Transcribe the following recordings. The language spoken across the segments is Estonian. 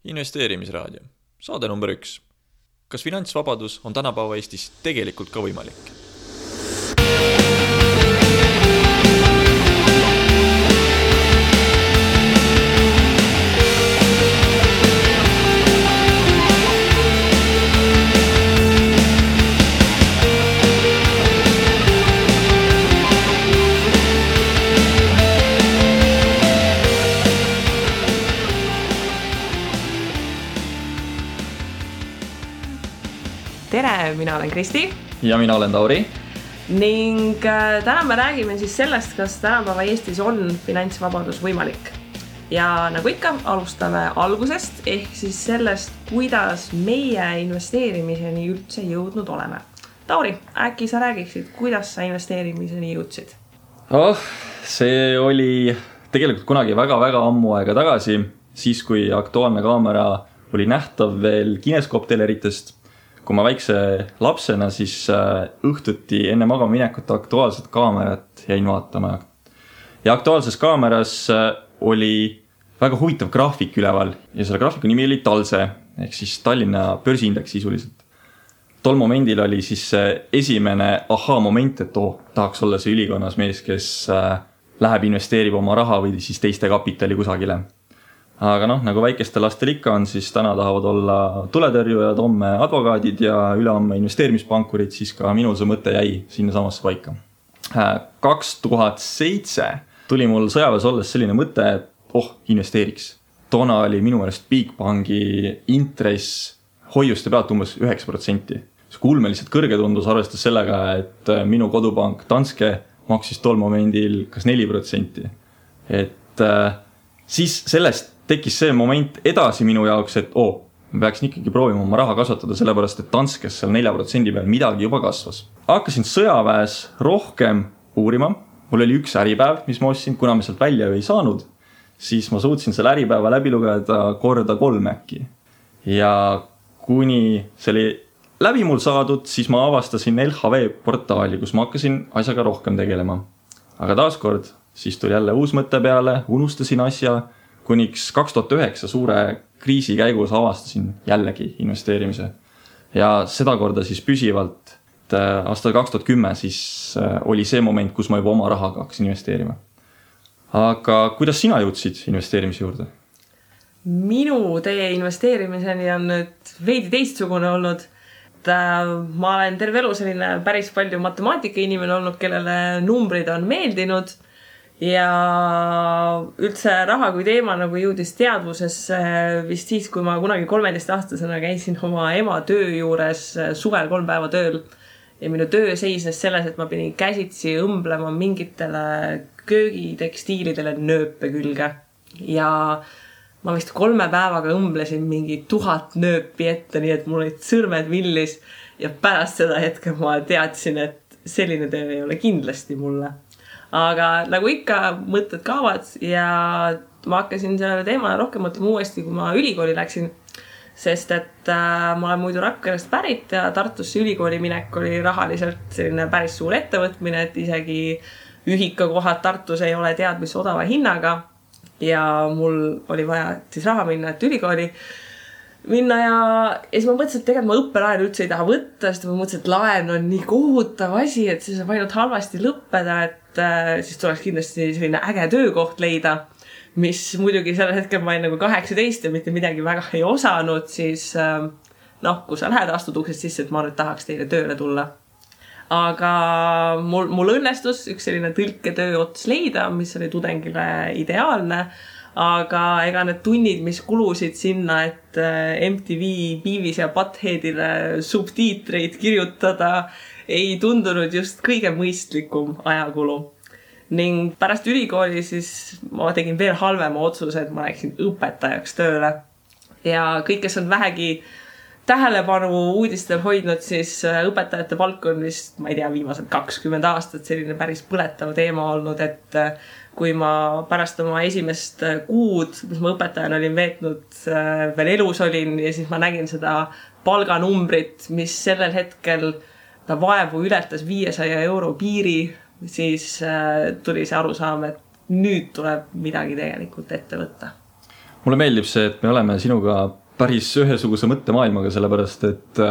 Investeerimisraadio, saade number 1. Kas finantsvabadus on tänapäeva Eestis tegelikult ka võimalik? Tere, mina olen Kristi. Ja mina olen Tauri. Ning täna me räägime siis sellest, kas tänapäeva Eestis on finantsvabadus võimalik. Ja nagu ikka, alustame algusest, ehk siis sellest, kuidas meie investeerimiseni üldse jõudnud oleme. Tauri, äkki sa räägiksid, kuidas sa investeerimiseni jõudsid? See oli tegelikult kunagi väga-väga ammu aega tagasi, siis kui Aktuaalne kaamera oli nähtav veel kineskoopteleritest. Kui ma väikse lapsena, siis õhtuti enne magama minekut Aktuaalset kaamerat jäin vaatama. Ja Aktuaalses kaameras oli väga huvitav graafik üleval ja selle graafiku nimi oli Talse, ehk siis Tallinna börsiindeks sisuliselt. Tol momendil oli siis esimene moment, et tahaks olla see ülikonnas mees, kes läheb investeerib oma raha või siis teiste kapitali kusagile. Aga nagu väikeste lastel ikka on, siis täna tahavad olla tuletõrjujad, homme advokaadid ja ülehomme investeerimispankurid, siis ka minul see mõte jäi sinna samasse paika. 2007 tuli mul sõjaväes olles selline mõte, et investeeriks. Toona oli minu meelest Bigbanki intress hoiuste pealt umbes 9%. See ulmeliselt kõrge tundus arvestas sellega, et minu kodupank Danske maksis tol momendil kas 4%. Et siis sellest tekkis see moment edasi minu jaoks, et ma peaksin ikkagi proovima oma raha kasvatada, sellepärast et Danskes seal 4% peal midagi juba kasvas. Hakkasin sõjaväes rohkem uurima. Mul oli üks äripäev, mis ma ostsin, kuna me sealt välja ei saanud, siis ma suutsin selle äripäeva läbi lugeda korda 3 äkki. Ja kuni see oli läbi mul saadud, siis ma avastasin LHV portaali, kus ma hakkasin asjaga rohkem tegelema. Aga taaskord, siis tuli jälle uus mõte peale, unustasin asja, kuniks 2009 suure kriisi käigus avastasin jällegi investeerimise. Ja seda korda siis püsivalt, et aastal 2010 siis oli see moment, kus ma juba oma rahaga hakkasin investeerima. Aga kuidas sina jõudsid investeerimise juurde? Minu tee investeerimiseni on nüüd veidi teistsugune olnud. Ma olen terve elu selline päris palju matemaatika inimene olnud, kellele numbrid on meeldinud. Ja üldse raha kui teema jõudis teadvusesse vist siis, kui ma kunagi 13-aastasena käisin oma ema töö juures suvel 3 päeva tööl. Ja minu töö seisnes selles, et ma pidin käsitsi õmblema mingitele köögitekstiilidele nööpe külge. Ja ma vist 3 päevaga õmblesin mingi 1000 nööpi ette, nii et mul olid sõrmed villis. Ja pärast seda hetke ma teadsin, et selline töö ei ole kindlasti mulle. Aga nagu ikka mõtted kaavad ja ma hakkasin selle teemale rohkem mõtlema uuesti, kui ma ülikooli läksin, sest et ma olen muidu Rakverest pärit ja Tartusse ülikooli minek oli rahaliselt selline päris suur ettevõtmine, et isegi ühikakohad Tartus ei ole tead mis odava hinnaga ja mul oli vaja siis raha minna, et ülikooli minna ja siis ma mõtlesin, et tegelikult ma õppelaenu üldse ei taha võtta, sest ma mõtlesin, et laen on nii kohutav asi, et see saab ainult halvasti lõppeda, et siis tuleks kindlasti selline äge töökoht leida, mis muidugi sellel hetkel ma olin 18 ja mitte midagi väga ei osanud, siis kui sa lähed astud uksest sisse, et ma nüüd tahaks teile tööle tulla. Aga mul õnnestus üks selline tõlketöö ots leida, mis oli tudengile ideaalne, aga ega need tunnid, mis kulusid sinna, et MTV, Beavis ja Buttheadile subtiitreid kirjutada, ei tundunud just kõige mõistlikum ajakulu. Ning pärast ülikooli siis ma tegin veel halvema otsuse, et ma läksin õpetajaks tööle. Ja kõik, kes on vähegi tähelepanu uudistel hoidnud, siis õpetajate palk on vist, ma ei tea, viimased 20 aastat selline päris põletav teema olnud, et kui ma pärast oma esimest kuud, mis ma õpetajana olin veetnud, veel elus olin ja siis ma nägin seda palganumbrit, mis sellel hetkel ta vaevu ületas 500 euro piiri, siis tuli see arusaam, et nüüd tuleb midagi tegelikult ette võtta. mulle meeldib see, et me oleme sinuga päris ühesuguse mõttemaailmaga, sellepärast et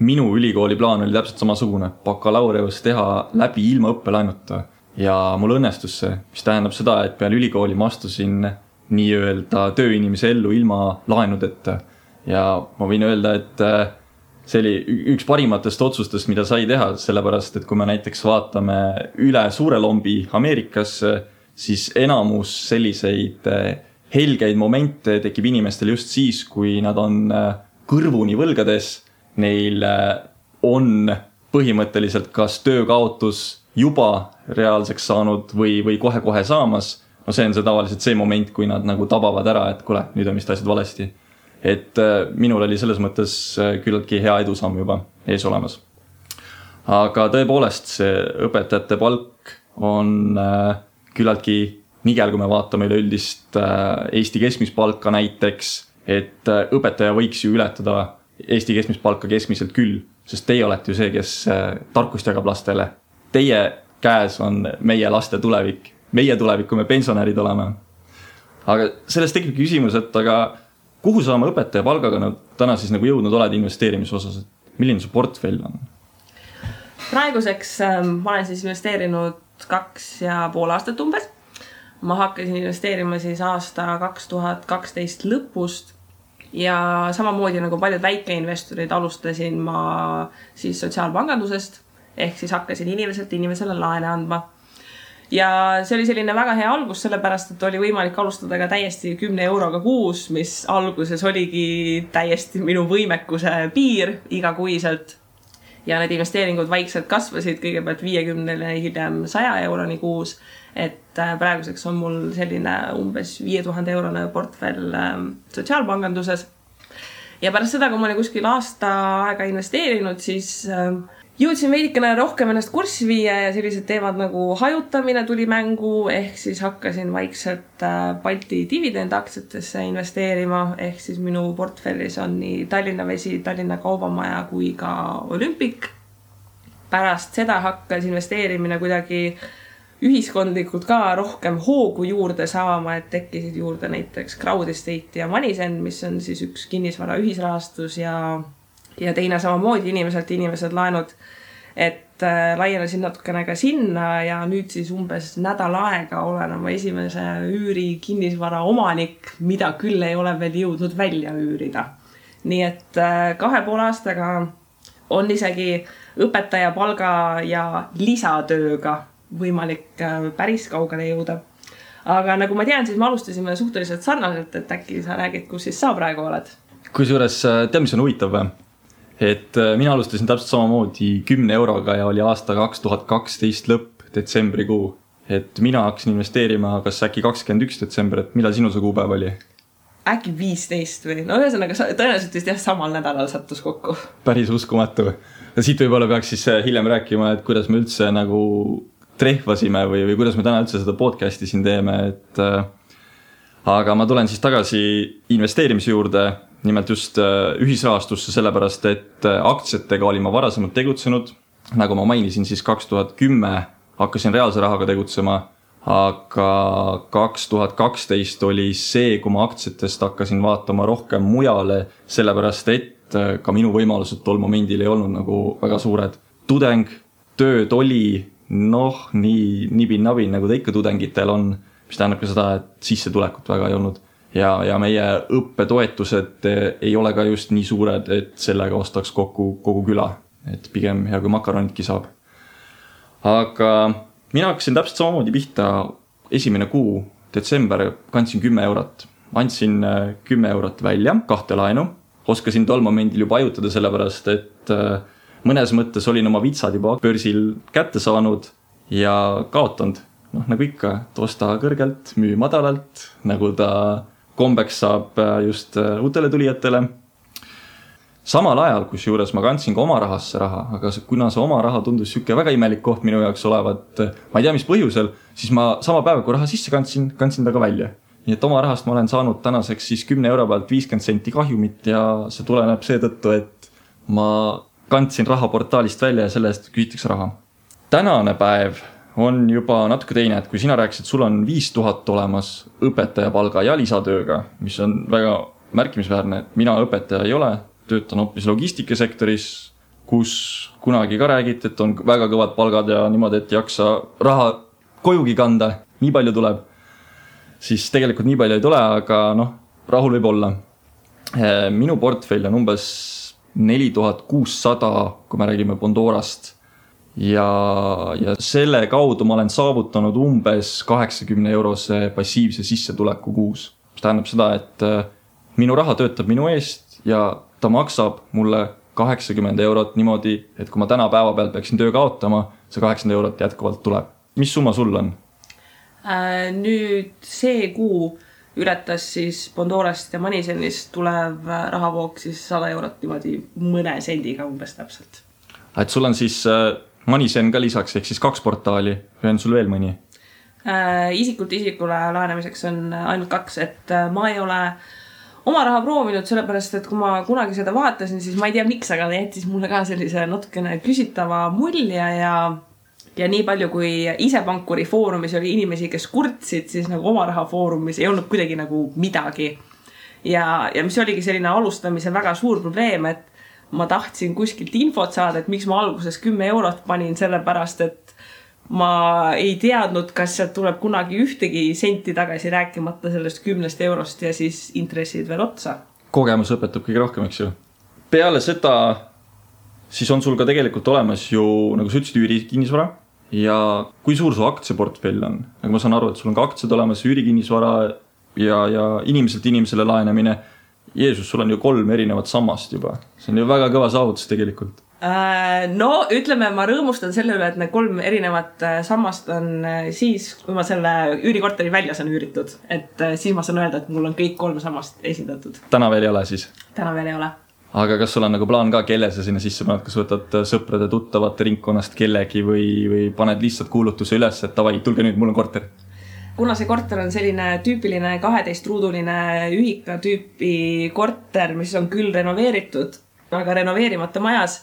minu ülikooli plaan oli täpselt samasugune, bakalaureus teha läbi ilma õppelaenuta ja mul õnnestus see, mis tähendab seda, et peale ülikooli ma astusin nii-öelda tööinimese ellu ilma laenudeta ja ma võin öelda, et see oli üks parimatest otsustest, mida sai teha, sellepärast et kui me näiteks vaatame üle suure lombi Ameerikasse, siis enamus selliseid helgeid momente tekib inimestel just siis, kui nad on kõrvuni võlgades, neil on põhimõtteliselt kas töökaotus juba reaalseks saanud või kohe-kohe saamas. No see on see tavaliselt see moment, kui nad nagu tabavad ära, et kuule, nüüd on vist asjad valesti. Et minul oli selles mõttes küllaltki hea edusamm juba ees olemas. Aga tõepoolest see õpetajate palk on küllaltki nigel, kui me vaatame üleüldist Eesti keskmist palka näiteks, et õpetaja võiks ju ületada Eesti keskmist palka keskmiselt küll, sest teie olete ju see, kes tarkust jagab lastele. Teie käes on meie laste tulevik. Meie tulevik, kui me pensionärid oleme. Aga sellest tekib küsimus, et aga kuhu sa oma õpetaja palgaga täna siis nagu jõudnud oled investeerimise osas? Milline su portfell on? Praeguseks ma olen siis investeerinud 2,5 aastat umbes. Ma hakkasin investeerima siis aasta 2012 lõpust ja samamoodi nagu paljud väikeinvestorid alustasin ma siis sotsiaalpangandusest ehk siis hakkasin inimesele laene andma. Ja see oli selline väga hea algus, sellepärast, et oli võimalik alustada ka täiesti 10 euroga kuus, mis alguses oligi täiesti minu võimekuse piir igakuiselt. Ja need investeeringud vaikselt kasvasid kõigepealt 50 hiljem 100 euroni kuus, et praeguseks on mul selline umbes 5000 eurone portfell sotsiaalpanganduses. Ja pärast seda, kui ma olin kuskil aasta aega investeerinud, siis jõudsin veidikene rohkem ennast kurssi viia ja sellised teemad nagu hajutamine tuli mängu, ehk siis hakkasin vaikselt Balti dividendaktsiatesse investeerima, ehk siis minu portfellis on nii Tallinna Vesi, Tallinna Kaubamaja kui ka Olümpik. Pärast seda hakkas investeerimine kuidagi ühiskondlikult ka rohkem hoogu juurde saama, et tekkisid juurde näiteks Crowd Estate ja Manisen, mis on siis üks kinnisvara ühisrahastus ja teine samamoodi inimesed laenud, et laienesin natukene ka sinna ja nüüd siis umbes nädal aega olen oma esimese üüri kinnisvara omanik, mida küll ei ole veel jõudnud välja üürida. Nii et 2,5 aastaga on isegi õpetaja palga ja lisatööga võimalik päris kaugele jõuda. Aga nagu ma tean, siis me alustasime suhteliselt sarnaselt, et äkki sa räägid, kus siis sa praegu oled? Kusjuures tead, mis on huvitav või? Et mina alustasin täpselt samamoodi 10 euroga ja oli aasta 2012 lõpp detsembrikuu. Et mina hakkasin investeerima kas äkki 21 detsember, et millal sinu see kuupäev oli? Äkki 15 või? No ühesõnaga tõenäoliselt vist jah samal nädalal sattus kokku. Päris uskumatu. Ja siit võib-olla peaks siis hiljem rääkima, et kuidas me üldse nagu trehvasime või kuidas me täna üldse seda podcasti siin teeme. Aga ma tulen siis tagasi investeerimise juurde, nimelt just ühisrahastusse, sellepärast, et aktsiatega olin ma varasemalt tegutsenud. Nagu ma mainisin, siis 2010 hakkasin reaalse rahaga tegutsema, aga 2012 oli see, kui ma aktsiatest hakkasin vaatama rohkem mujale, sellepärast, et ka minu võimalused tol momendil ei olnud nagu väga suured. Tudeng, tööd oli, nii nibin-nabin, nagu ta ikka tudengitel on, mis tähendab ka seda, et sissetulekut väga ei olnud. Ja meie õppetoetused ei ole ka just nii suured, et sellega ostaks kogu küla. Et pigem hea kui makaronitki saab. Aga mina hakkasin täpselt samamoodi pihta esimene kuu, detsember, kandsin 10 eurot. Andsin 10 eurot välja, 2 laenu. Oskasin tol momendil juba ajutada sellepärast, et mõnes mõttes olin oma vitsad juba börsil kätte saanud ja kaotanud. Nagu ikka, osta kõrgelt, müü madalalt, nagu ta kombeks saab just uutele tulijatele. Samal ajal, kus juures ma kandsin ka oma rahasse raha, aga kuna see oma raha tundus süke väga imelik koht minu jaoks olevat, ma ei tea mis põhjusel, siis ma sama päeva, kui raha sisse kandsin ta ka välja. Nii et oma rahast ma olen saanud tänaseks siis 10 euro pealt 50 senti kahjumit ja see tuleneb seetõttu, et ma kandsin raha portaalist välja ja selle eest küsitakse raha. Tänane päev on juba natuke teine, et kui sina rääkisid, sul on 5000 olemas õpetaja palga ja lisatööga, mis on väga märkimisväärne, et mina õpetaja ei ole, töötan hoopis logistikasektoris, kus kunagi ka räägiti, et on väga kõvad palgad ja niimoodi, et jaksa raha kojugi kanda, nii palju tuleb. Siis tegelikult nii palju ei tule, aga rahul võib olla. Minu portfell on umbes 4600, kui me räägime Bondorast. Ja selle kaudu ma olen saavutanud umbes 80 eurose passiivse sissetuleku kuus. Mis tähendab seda, et minu raha töötab minu eest ja ta maksab mulle 80 eurot niimoodi, et kui ma täna päeva pealt peaksin töö kaotama, see 80 eurot jätkuvalt tuleb. Mis summa sul on? Nüüd see kuu ületas siis Bondorast ja Manisenist tulev rahavoog siis 100 eurot niimoodi mõne sendiga umbes täpselt. Et sul on siis Manisen ka lisaks, ehk siis 2 portaali või on sul veel mõni? Isikult isikule laenamiseks on ainult 2, et ma ei ole oma raha proovinud, sellepärast, et kui ma kunagi seda vaatasin, siis ma ei tea miks, aga ta jättis mulle ka sellise natukene küsitava mulje ja nii palju, kui ise pankuri foorumis oli inimesi, kes kurtsid, siis nagu oma raha foorumis ei olnud kuidagi nagu midagi. Ja mis oligi selline alustamise väga suur probleem, et ma tahtsin kuskilt infot saada, et miks ma alguses 10 eurot panin sellepärast, et ma ei teadnud, kas sealt tuleb kunagi ühtegi senti tagasi rääkimata sellest 10 eurost ja siis intressid veel otsa. Kogemus õpetab kõige rohkem, eks ju. Peale seda siis on sul ka tegelikult olemas ju, nagu sa ütlesid, üürikinnisvara. Ja kui suur su aktsiaportfell on? Nagu ma saan aru, et sul on ka aktsiad olemas, üürikinnisvara ja inimeselt inimesele laenamine. Jeesus, sul on ju 3 erinevat sammast juba. See on ju väga kõva saavutus tegelikult. No, ütleme, ma rõõmustan selle üle, et need 3 erinevat sammast on siis, kui ma selle üürikorteri välja saan üüritud. Et siis ma saan öelda, et mul on kõik 3 sammast esindatud. Täna veel ei ole siis? Täna veel ei ole. Aga kas sul on nagu plaan ka, kelle sa sinna sisse paned, kas võtad sõprade tuttavate ringkonnast kellegi või paned lihtsalt kuulutuse üles, et tavai, tulge nüüd, mul on korter? Kuna see korter on selline tüüpiline 12-ruuduline ühika tüüpi korter, mis on küll renoveeritud, aga renoveerimata majas,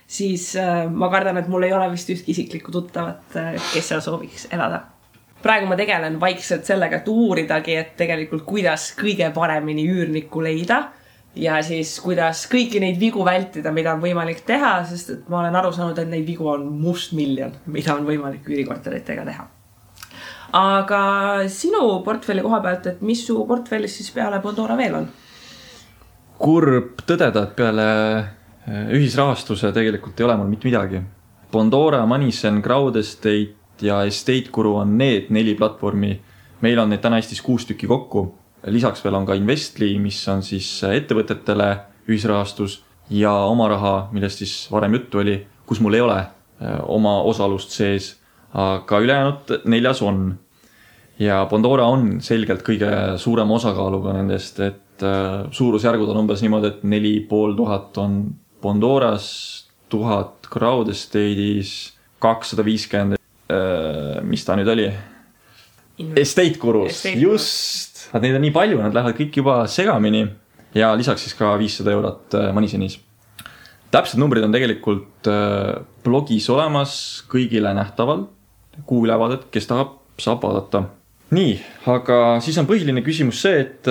siis ma kardan, et mul ei ole vist ühtki isiklikku tuttavat, kes seal sooviks elada. Praegu ma tegelen vaikselt sellega, et uuridagi, et tegelikult kuidas kõige paremini üürnikku leida ja siis kuidas kõiki neid vigu vältida, mida on võimalik teha, sest et ma olen aru saanud, et neid vigu on mustmiljon, mida on võimalik üürikorteritega teha. Aga sinu portfelli koha pealt, et mis su portfellis siis peale Bondora veel on? Kurb tõdeda, et peale ühisrahastuse tegelikult ei ole mul mitte midagi. Bondora, Manisen, Crowd Estate ja Estate Guru on need 4 platvormi. Meil on neid täna Eestis 6 tükki kokku. Lisaks veel on ka Investli, mis on siis ettevõtetele ühisrahastus ja oma raha, millest siis varem juttu oli, kus mul ei ole oma osalust sees, aga ülejäänud 4 on. Ja Bondora on selgelt kõige suurem osakaaluga nendest, et suurusjärgud on umbes niimoodi, et 4500 on Bondoras, 1000 Crowd Estate'is, 250, mis ta nüüd oli? Estate Gurus, just! Neid on nii palju, nad lähevad kõik juba segamini ja lisaks siis ka 500 eurot Manisenis. Täpsed numbrid on tegelikult blogis olemas kõigile nähtaval, kuulevaadet, kes tahab, saab vaadata. Nii, aga siis on põhiline küsimus see, et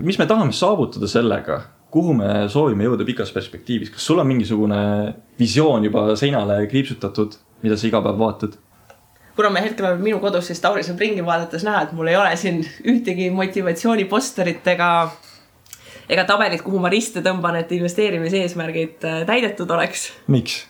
mis me tahame saavutada sellega, kuhu me soovime jõuda pikas perspektiivis. Kas sul on mingisugune visioon juba seinale kriipsutatud, mida sa iga päev vaatad? Kuna me hetkel oleme minu kodus, siis Tauri saab ringi vaadates näha, et mul ei ole siin ühtegi motivatsiooniposterit ega tabelit, kuhu ma riste tõmban, et investeerimise eesmärgid täidetud oleks. Miks?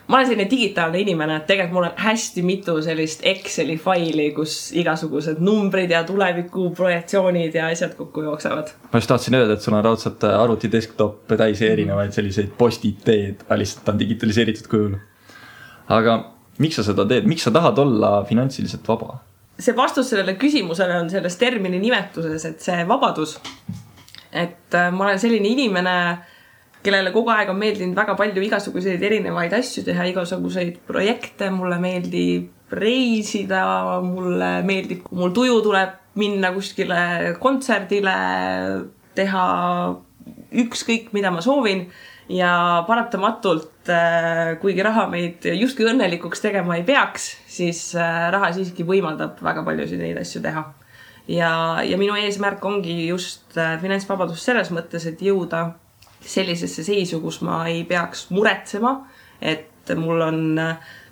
Ma olen selline digitaalne inimene, et tegelikult mul on hästi mitu sellist Exceli faili, kus igasugused numbrid ja tuleviku projektsioonid ja asjad kokku jooksevad. Ma just tahtsin öelda, et sul on raudselt arvuti desktop täis erinevaid selliseid post-it-teed, lihtsalt on digitaliseeritud kujul. Aga miks sa seda teed? Miks sa tahad olla finantsiliselt vaba? See vastus sellele küsimusele on selles termini nimetuses, et see vabadus. Et ma olen selline inimene, kellele kogu aeg on meeldinud väga palju igasuguseid erinevaid asju teha, igasuguseid projekte, mulle meeldib reisida, mulle meeldib, kui mul tuju tuleb minna kuskile kontserdile, teha ükskõik, mida ma soovin ja paratamatult, kuigi raha meid justkui õnnelikuks tegema ei peaks, siis raha siiski võimaldab väga paljusid neid asju teha. Ja minu eesmärk ongi just finantsvabadus selles mõttes, et jõuda sellisesse seisu, kus ma ei peaks muretsema, et mul on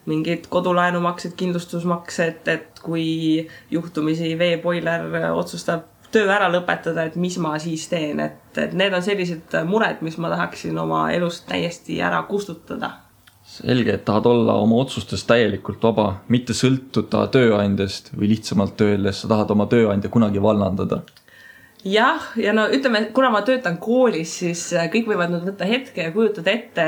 mingid kodulaenumaksed, kindlustusmaksed, et kui juhtumisi veepoiler otsustab töö ära lõpetada, et mis ma siis teen, et need on sellised mured, mis ma tahaksin oma elust täiesti ära kustutada. Selge, et tahad olla oma otsustes täielikult vaba, mitte sõltuda tööandjast või lihtsamalt öeldes, sa tahad oma tööandja kunagi vallandada. Jah, ja no ütleme, kuna ma töötan koolis, siis kõik võivad nüüd võtta hetke ja kujutada ette,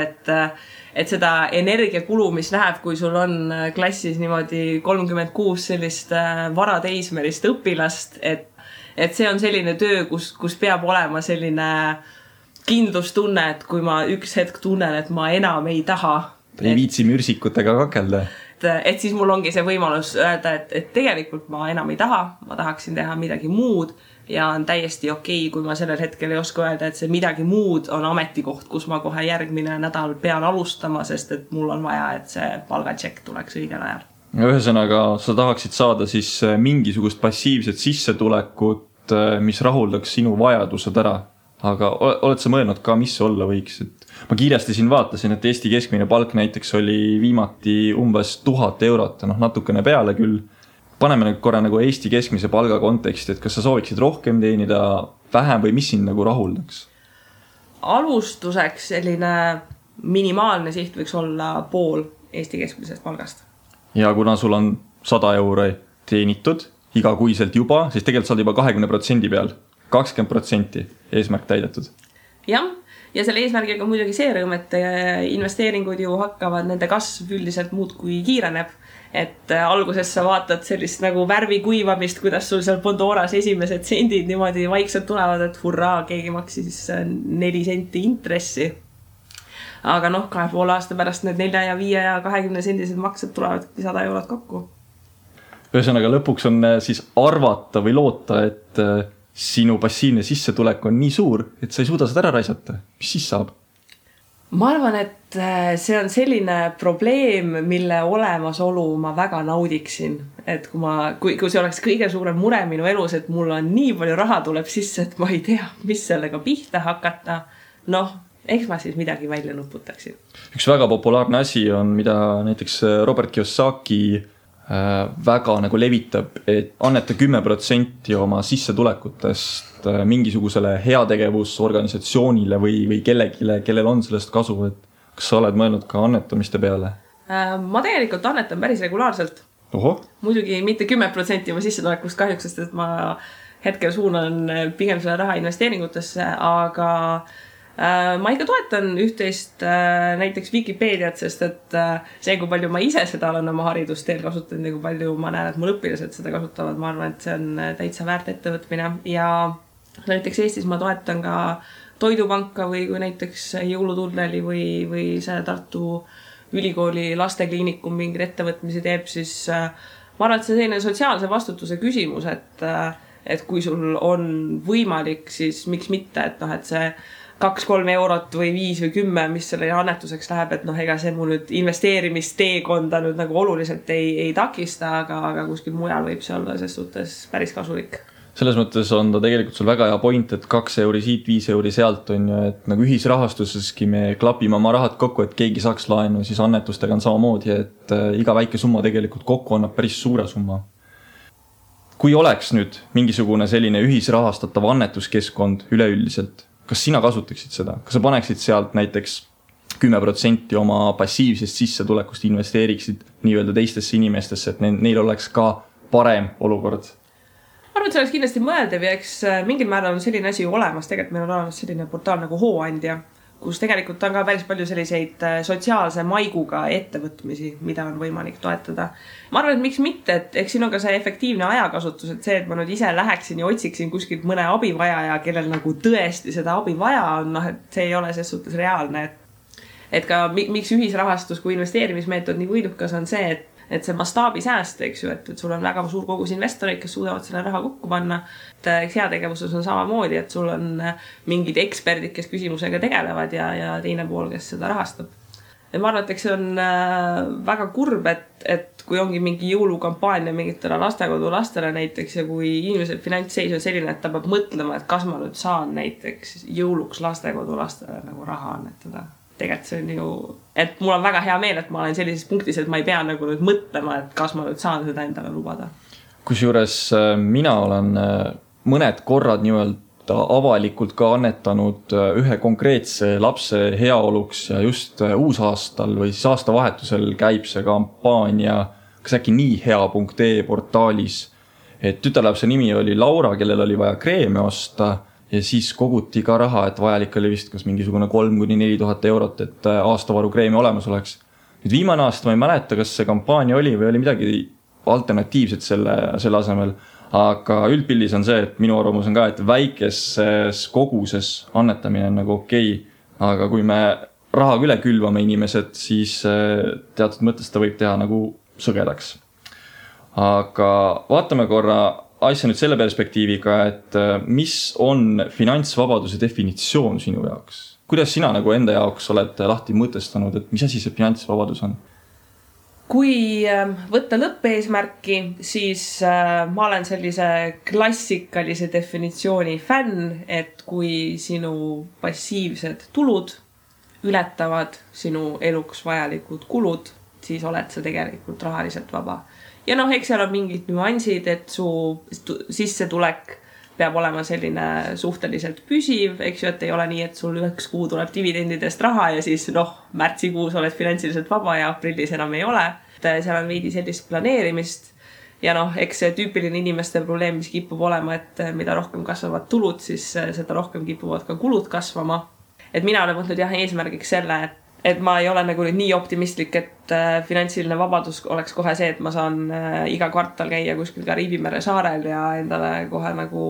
et seda energiakulu, mis läheb, kui sul on klassis niimoodi 36 sellist varateismelist õpilast, et see on selline töö, kus peab olema selline kindlustunne, et kui ma üks hetk tunnen, et ma enam ei taha. Ei viitsi mürsikutega kakelda. Et siis mul ongi see võimalus öelda, et tegelikult ma enam ei taha, ma tahaksin teha midagi muud ja on täiesti okei, kui ma sellel hetkel ei oska öelda, et see midagi muud on ametikoht, kus ma kohe järgmine nädal pean alustama, sest et mul on vaja, et see palgatšekk tuleks õigel ajal. Ühesõnaga, sa tahaksid saada siis mingisugust passiivset sissetulekut, mis rahuldaks sinu vajadused ära. Aga oled sa mõelnud ka, mis see olla võiks? Ma kiiresti siin vaatasin, et Eesti keskmine palk näiteks oli viimati umbes 1000 eurot, natukene peale küll. Paneme nüüd korra nagu Eesti keskmise palga konteksti, et kas sa sooviksid rohkem teenida, vähem või mis sind nagu rahuldaks? Alustuseks selline minimaalne siht võiks olla pool Eesti keskmisest palgast. Ja kuna sul on 100 euro teenitud igakuiselt juba, siis tegelikult saad juba 20% peal. 20% eesmärk täidetud. Jah, ja selle eesmärgiga on muidugi see rõõm, et investeeringud ju hakkavad, nende kasv üldiselt muud kui kiireneb. Et alguses sa vaatad sellist nagu värvi kuivamist, kuidas sul seal Pandoras esimesed sendid niimoodi vaikselt tulevad, et hurraa, keegi maksis 4 senti intressi. Aga 2,5 aasta pärast need 4 ja 5 ja 20 sendised maksed tulevad 100 eurot kokku. Ühesõnaga lõpuks on siis arvata või loota, et sinu passiivne sissetulek on nii suur, et sa ei suuda seda ära raisata. Mis siis saab? Ma arvan, et see on selline probleem, mille olemasolu ma väga naudiksin. Et kui see oleks kõige suurem mure minu elus, et mul on nii palju raha tuleb sisse, et ma ei tea, mis sellega pihta hakata. Eks ma siis midagi välja nuputaksin. Üks väga populaarne asi on, mida näiteks Robert Kiyosaki väga nagu levitab, et anneta 10% oma sissetulekutest mingisugusele heategevusorganisatsioonile või kellegile, kellel on sellest kasu, et kas sa oled mõelnud ka annetamiste peale? Ma tegelikult annetan päris regulaarselt. Oho. Muidugi mitte 10% oma sissetulekust kahjuks, sest et ma hetkel suunan pigem selle raha investeeringutesse, aga ma ikka toetan üht-teist näiteks Wikipeediat, sest et see, kui palju ma ise seda olen oma haridusteel kasutanud ja kui palju ma näen, et mul õpilased seda kasutavad, ma arvan, et see on täitsa väärt ettevõtmine. Ja näiteks Eestis ma toetan ka Toidupanka või kui näiteks Jõulutunneli või see Tartu Ülikooli lastekliinikum mingid ettevõtmisi teeb, siis ma arvan, et see selline sotsiaalse vastutuse küsimus, et kui sul on võimalik, siis miks mitte, et see 2-3 eurot või 5 või 10, mis selle annetuseks läheb, et ega see mul nüüd investeerimisteekonda nüüd nagu oluliselt ei takista, aga kuskil mujal võib see olla ses suhtes päris kasulik. Selles mõttes on ta tegelikult sul väga hea point, et 2 euri siit, 5 euri sealt on ju, et nagu ühisrahastuseski me klapime oma rahad kokku, et keegi saaks laenu, siis annetustega on samamoodi, et iga väike summa tegelikult kokku annab päris suure summa. Kui oleks nüüd mingisugune selline ühisrahastatav annetuskeskkond üleüldiselt, kas sina kasutaksid seda? Kas sa paneksid sealt näiteks 10% oma passiivsest sissetulekust investeeriksid nii-öelda teistesse inimestesse, et neil oleks ka parem olukord? Ma arvan, et see oleks kindlasti mõeldav ja eks mingil määral on selline asi olemas. Tegelikult meil on olemas selline portaal nagu Hooandja, kus tegelikult on ka päris palju selliseid sotsiaalse maiguga ettevõtmisi, mida on võimalik toetada. Ma arvan, et miks mitte, et eks siin on ka see efektiivne ajakasutus, et see, et ma nüüd ise läheksin ja otsiksin kuskilt mõne abivajaja, kellel nagu tõesti seda abi vaja on, et see ei ole ses suhtes reaalne. Et ka miks ühisrahastus kui investeerimismeetod nii võidukas on see, et see mastaabisääst, eks ju, et sul on väga suur kogus investoreid, kes suudavad selle raha kokku panna. Et heategevuses on samamoodi, et sul on mingid eksperdid, kes küsimusega tegelevad ja teine pool, kes seda rahastab. Ja ma arvan, et see on väga kurb, et kui ongi mingi jõulukampaania mingitele lastekodu lastele näiteks ja kui inimese finantsseis on selline, et ta peab mõtlema, et kas ma nüüd saan näiteks jõuluks lastekodu lastele nagu raha annetada. Tegelikult see on ju, et mul on väga hea meel, et ma olen sellises punktis, et ma ei pea nagu nüüd mõtlema, et kas ma nüüd saan seda endale lubada. Kusjuures mina olen mõned korrad nii-öelda avalikult ka annetanud ühe konkreetse lapse heaoluks ja just uusaastal või siis aastavahetusel käib see kampaania, kas äkki niihea.ee portaalis, et tütarlapse nimi oli Laura, kellel oli vaja kreeme osta ja siis koguti ka raha, et vajalik oli vist kas mingisugune 3-4 000 eurot, et aastavaru kreemi olemas oleks. Nüüd viimane aasta ma ei mäleta, kas see kampaania oli või oli midagi alternatiivset selle asemel. Aga üldpildis on see, et minu arvamus on ka, et väikeses koguses annetamine on nagu okei. Aga kui me rahaga üle külvame inimesed, siis teatud mõttes ta võib teha nagu sõgedaks. Aga vaatame korra asja nüüd selle perspektiiviga, et mis on finantsvabaduse definitsioon sinu jaoks? Kuidas sina nagu enda jaoks oled lahti mõtestanud, et mis asi see finantsvabadus on? Kui võtta lõppeesmärki, siis ma olen sellise klassikalise definitsiooni fänn, et kui sinu passiivsed tulud ületavad sinu eluks vajalikud kulud, siis oled sa tegelikult rahaliselt vaba. Ja eks seal on mingid nüansid, et su sissetulek peab olema selline suhteliselt püsiv, eks ju, et ei ole nii, et sul üheks kuu tuleb dividendidest raha ja siis märtsikuus oled finantsiliselt vaba ja aprillis enam ei ole. Seal on veidi sellist planeerimist ja eks see tüüpiline inimeste probleem, mis kipub olema, et mida rohkem kasvavad tulud, siis seda rohkem kipuvad ka kulud kasvama. Et mina olen võtnud eesmärgiks selle, et ma ei ole nagu nii optimistlik, et finantsiline vabadus oleks kohe see, et ma saan iga kvartal käia kuskil Kariibimere saarel ja endale kohe nagu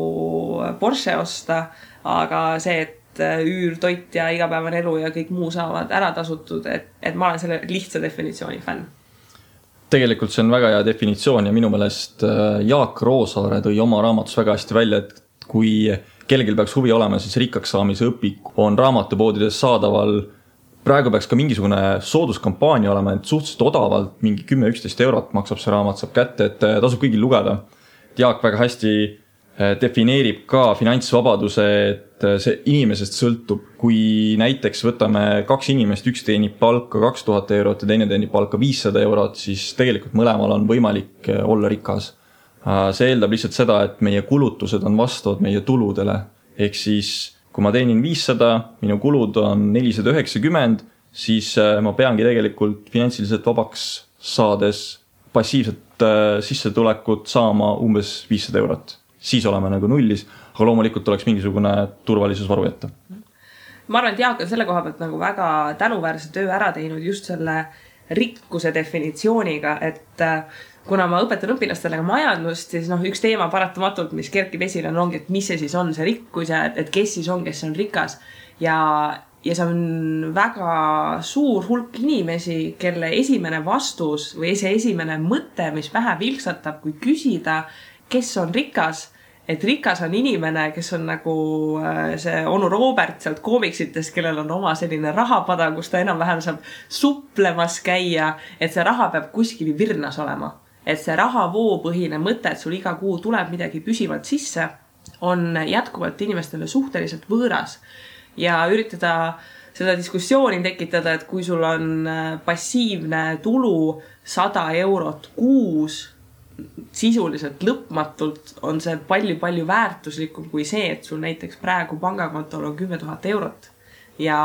Porsche osta, aga see, et üür, toit ja igapäevane elu ja kõik muu saavad ära tasutud, et ma olen selle lihtsa definitsiooni fänn. Tegelikult see on väga hea definitsioon ja minu meelest Jaak Roosaare tõi oma raamatus väga hästi välja, et kui kellelgi peaks huvi olema, siis rikkaks saamise õpik on raamatupoodides saadaval. Praegu peaks ka mingisugune sooduskampaania olema, et suhteliselt odavalt mingi 10-11 eurot maksab see raamat, saab kätte, et tasub kõigil lugeda. Jaak väga hästi defineerib ka finantsvabaduse, et see inimesest sõltub, kui näiteks võtame 2 inimest, üks teenib palka 2000 eurot ja teine teenib palka 500 eurot, siis tegelikult mõlemal on võimalik olla rikas. See eeldab lihtsalt seda, et meie kulutused on vastavad meie tuludele. Ehk siis, kui ma teenin 500, minu kulud on 490, siis ma peangi tegelikult finantsiliselt vabaks saades passiivset sissetulekut saama umbes 500 eurot. Siis oleme nagu nullis, aga loomulikult oleks mingisugune turvalisusvaru jätta. Ma arvan, et Jaak on selle koha pealt nagu väga tänuväärse töö ära teinud just selle rikkuse definitsiooniga, et kuna ma õpetan õpilastele majandust, siis üks teema paratamatult, mis kerkib esile ongi, et mis see siis on see rikkus ja et kes siis on, kes on rikas. Ja see on väga suur hulk inimesi, kelle esimene vastus või see esimene mõte, mis pähe vilksatab, kui küsida, kes on rikas, et rikas on inimene, kes on nagu see onu Robert sealt koomiksitest, kellel on oma selline rahapada, kus ta enam-vähem saab suplemas käia, et see raha peab kuskil virnas olema. Et see rahavoopõhine mõte, et sul iga kuu tuleb midagi püsivalt sisse, on jätkuvalt inimestele suhteliselt võõras. Ja üritada seda diskussiooni tekitada, et kui sul on passiivne tulu 100 eurot kuus, sisuliselt lõpmatult on see palju väärtuslikum kui see, et sul näiteks praegu pangakontol on 10 000 eurot. Ja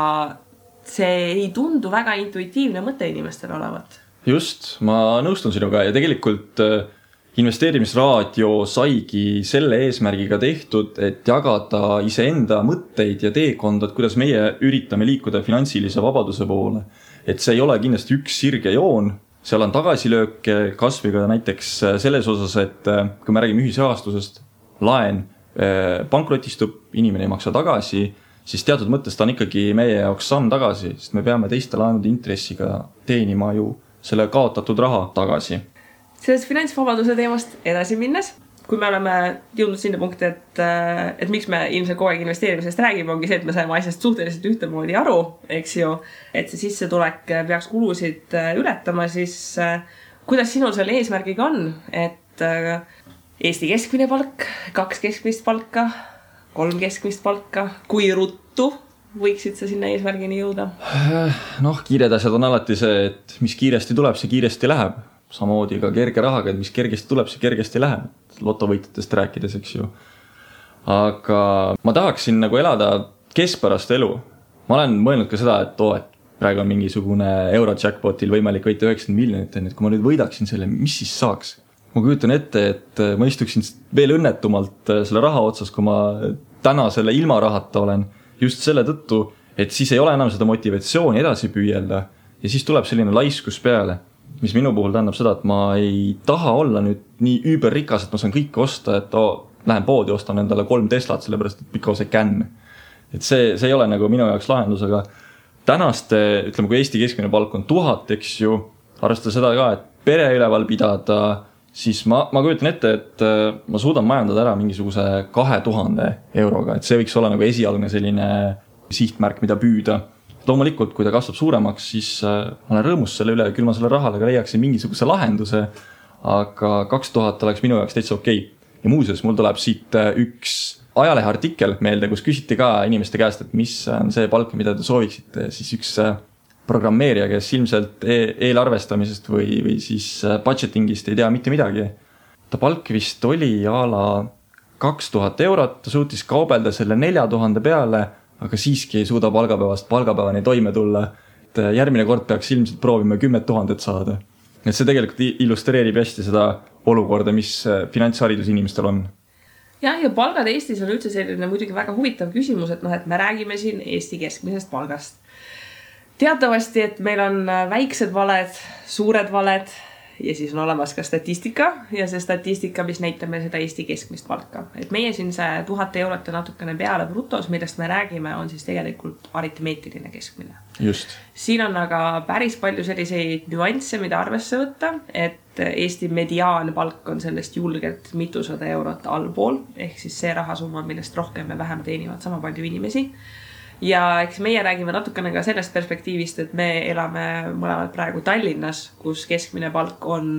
see ei tundu väga intuitiivne mõte inimestele olevat. Just, ma nõustun sinuga ja tegelikult investeerimisraadio saigi selle eesmärgiga tehtud, et jagada iseenda mõtteid ja teekondad, kuidas meie üritame liikuda finantsilise vabaduse poole. Et see ei ole kindlasti üks sirge joon, seal on tagasilöök kasviga näiteks selles osas, et kui me räägime ühisrahastusest, laen pankrotistub, inimene ei maksa tagasi, siis teatud mõttes ta on ikkagi meie jaoks samm tagasi, sest me peame teiste laenude intressiga teenima ju selle kaotatud raha tagasi. Sellest finantsvabaduse teemast edasi minnes, kui me oleme jõudnud sinna punkti, et miks me ilmselt kogu aeg investeerimisest räägime, ongi see, et me saime asjast suhteliselt ühtemoodi aru, eks ju, et see sissetulek peaks kulusid ületama, siis kuidas sinul selle eesmärgiga on, et Eesti keskmine palk, 2 keskmist palka, 3 keskmist palka, kui ruttu võiksid sa sinna eesmärgini jõuda? Kiired asjad on alati see, et mis kiiresti tuleb, see kiiresti läheb. Samamoodi ka kerge rahaga, et mis kergesti tuleb, see kergesti läheb. Lotovõitjatest rääkides, eks ju. Aga ma tahaksin nagu elada keskpärast elu. Ma olen mõelnud ka seda, et praegu on mingisugune Eurojackpotil võimalik võita 90 miljonit, et kui ma nüüd võidaksin selle, mis siis saaks? Ma kujutan ette, et ma istuksin veel õnnetumalt selle raha otsas, kui ma täna selle ilma rahata olen. Just selle tõttu, et siis ei ole enam seda motivatsiooni edasi püüelda ja siis tuleb selline laiskus peale, mis minu puhul tähendab seda, et ma ei taha olla nüüd nii üüberrikas, et ma saan kõike osta, et lähen poodi, ostan endale 3 Teslat, sellepärast et because I can. Et see ei ole nagu minu jaoks lahendus, aga tänaste, ütleme, kui Eesti keskmine palk on 1000, eks ju, arvestada seda ka, et pere üleval pidada, siis ma kujutan ette, et ma suudan majandada ära mingisuguse 2000 euroga, et see võiks olla nagu esialgne selline sihtmärk, mida püüda. Loomulikult, kui ta kasvab suuremaks, siis ma olen rõõmus selle üle, küll ma selle rahale ka leiaksin mingisuguse lahenduse, aga 2000 oleks minu jaoks täitsa okei. Ja muuseas, mul tuleb siit üks ajalehe artikkel meelde, kus küsiti ka inimeste käest, et mis on see palk, mida te sooviksite, siis üks programmeerija, kes ilmselt eelarvestamisest või siis budgetingist ei tea mitte midagi. Ta palk vist oli a la 2000 eurot, ta suutis kaubelda selle 4000 peale, aga siiski ei suuda palgapäevast palgapäevani toime tulla. Et järgmine kord peaks ilmselt proovima 10 000 saada. Et see tegelikult illustreerib hästi seda olukorda, mis finantsharidus inimestel on. Ja palgad Eestis on üldse selline muidugi väga huvitav küsimus, et me räägime siin Eesti keskmisest palgast. Teatavasti, et meil on väiksed valed, suured valed ja siis on olemas ka statistika ja see statistika, mis näitab meil seda Eesti keskmist palka. Et meie siin see 1000 eurot ja natukene peale brutos, millest me räägime, on siis tegelikult aritmeetiline keskmine. Just. Siin on aga päris palju selliseid nüansse, mida arvesse võtta, et Eesti mediaanpalk on sellest julgelt mitusada eurot allpool, ehk siis see rahasumma, millest rohkem ja vähem teenivad sama palju inimesi. Ja eks meie räägime natukene ka sellest perspektiivist, et me elame mõlemad praegu Tallinnas, kus keskmine palk on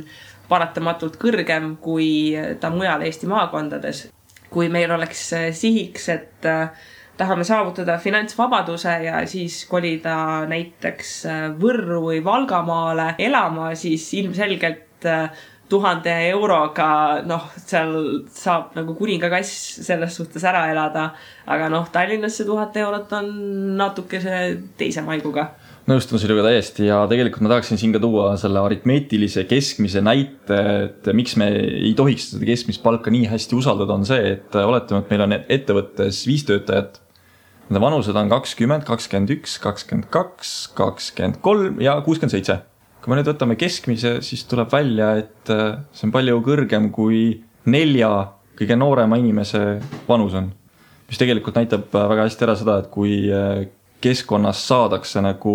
paratamatult kõrgem kui ta mujal Eesti maakondades. Kui meil oleks sihiks, et tahame saavutada finantsvabaduse ja siis kolida näiteks Võrru või Valgamaale elama, siis ilmselgelt 1000 euroga, seal saab nagu kuningakass selles suhtes ära elada, aga Tallinnas see 1000 eurot on natuke see teise maiguga. Nõustun sinuga täiesti ja tegelikult ma tahaksin siin ka tuua selle aritmeetilise keskmise näite, et miks me ei tohiks seda keskmist palka nii hästi usaldada, on see, et oletame, et meil on ettevõttes 5 töötajat. Nende vanused on 20, 21, 22, 23 ja 67. Kui me nüüd võtame keskmise, siis tuleb välja, et see on palju kõrgem kui 4 kõige noorema inimese vanus on. Mis tegelikult näitab väga hästi ära seda, et kui keskkonnas saadakse nagu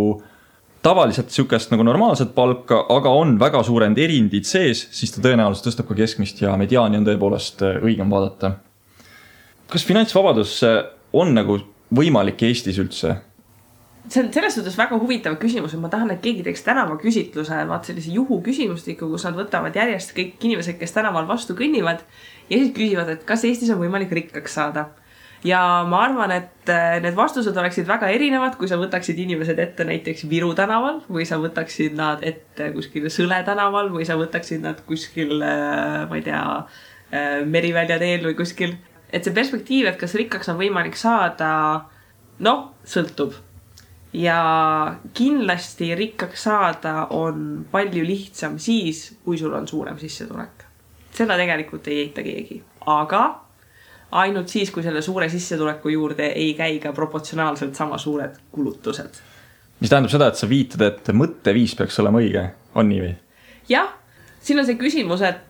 tavaliselt sükest nagu normaalset palka, aga on väga suurend erindid sees, siis ta tõenäoliselt tõstab ka keskmist ja mediaani on tõepoolest õigem vaadata. Kas finantsvabadus on nagu võimalik Eestis üldse? See on selles suhtes väga huvitav küsimus, et ma tahan, et keegi teeks tänava küsitluse, sellise juhu küsimustiku, kus nad võtavad järjest kõik inimesed, kes tänaval vastu kõnnivad ja siis küsivad, et kas Eestis on võimalik rikkaks saada. Ja ma arvan, et need vastused oleksid väga erinevad, kui sa võtaksid inimesed ette näiteks Viru tänaval või sa võtaksid nad ette kuskil Sõle tänaval või sa võtaksid nad kuskil, ma ei tea, Merivälja teel või kuskil. Et see perspektiiv, et kas rikkaks on võimalik saada, sõltub. Ja kindlasti rikkaks saada on palju lihtsam siis, kui sul on suurem sissetulek. Seda tegelikult ei eita keegi. Aga ainult siis, kui selle suure sissetuleku juurde ei käi ka proportsionaalselt sama suured kulutused. Mis tähendab seda, et sa viitad, et mõtteviis peaks olema õige, on nii või? Jah, siin on see küsimus, et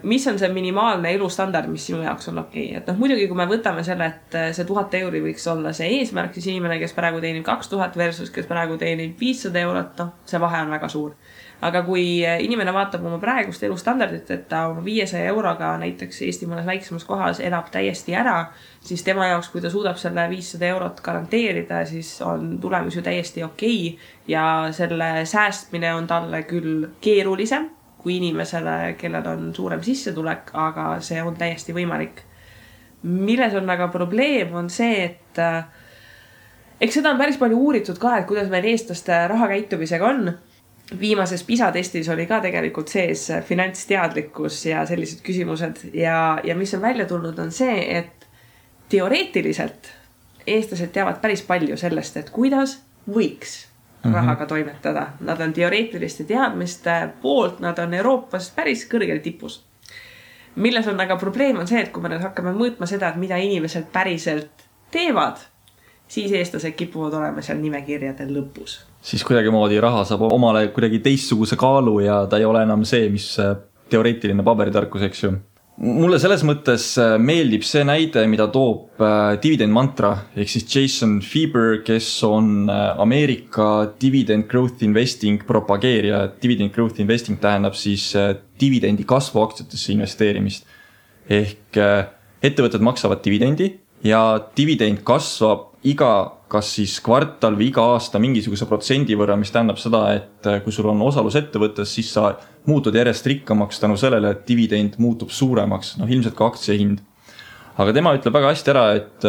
mis on see minimaalne elustandard, mis sinu jaoks on okei. Et muidugi, kui me võtame selle, et see 1000 euri võiks olla see eesmärk, siis inimene, kes praegu teenib 2000 versus kes praegu teenib 500 eurot, see vahe on väga suur. aga kui inimene vaatab oma praegust elustandardit, et ta oma 500 euroga näiteks Eesti mõnes väiksemas kohas elab täiesti ära, siis tema jaoks, kui ta suudab selle 500 eurot garanteerida, siis on tulemus ju täiesti okei. Ja selle säästmine on talle küll keerulisem kui inimesele, kellel on suurem sissetulek, aga see on täiesti võimalik. Milles on aga probleem on see, et eks seda on päris palju uuritud ka, et kuidas meil eestlaste rahakäitumisega on. Viimases PISA testis oli ka tegelikult sees finantsteadlikkus ja sellised küsimused ja mis on välja tulnud on see, et teoreetiliselt eestlased teavad päris palju sellest, et kuidas võiks rahaga toimetada. Nad on teoreetiliste teadmiste poolt, nad on Euroopas päris kõrgel tipus. Milles on aga probleem on see, et kui me nüüd hakkame mõõtma seda, et mida inimesed päriselt teevad, siis eestlased kipuvad olema seal nimekirjadel lõpus. Siis kuidagimoodi raha saab omale kuidagi teistsuguse kaalu ja ta ei ole enam see, mis teoreetiline paberitarkus, eks ju. Mulle selles mõttes meeldib see näide, mida toob Dividend Mantra, ehk siis Jason Fieber, kes on Ameerika Dividend Growth Investing propageerija. Dividend Growth Investing tähendab siis dividendi kasvu aktsiatesse investeerimist. Ehk ettevõtted maksavad dividendi ja dividend kasvab iga kas siis kvartal või iga aasta mingisuguse protsendi võrra, mis tähendab seda, et kui sul on osalus ettevõttes, siis sa muutud järjest rikkamaks tänu sellele, et dividend muutub suuremaks, ilmselt ka aktsia hind. Aga tema ütleb väga hästi ära, et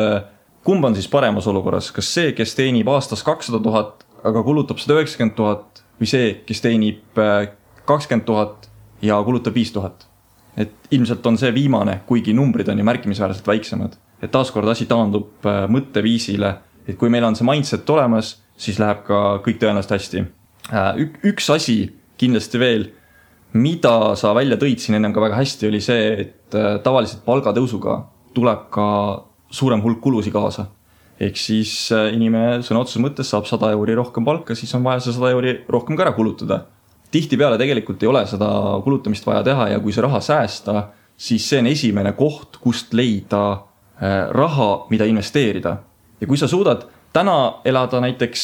kumb on siis paremas olukorras, kas see, kes teenib aastas 200 000, aga kulutab 190 000 või see, kes teenib 20 000 ja kulutab 5 000. Et ilmselt on see viimane, kuigi numbrid on ju märkimisväärselt väiksemad. Et taaskord asi taandub mõtteviisile, et kui meil on see mindset olemas, siis läheb ka kõik tõenäoliselt hästi. Üks asi kindlasti veel, mida sa välja tõid siin ennem ka väga hästi, oli see, et tavaliselt palgatõusuga tuleb ka suurem hulk kulusi kaasa. Ehk siis inimene sõna otseses mõttes saab 100 euri rohkem palka, siis on vaja see 100 euri rohkem ka ära kulutada. Tihtipeale tegelikult ei ole seda kulutamist vaja teha ja kui see raha säästa, siis see on esimene koht, kust leida raha, mida investeerida. Ja kui sa suudad täna elada näiteks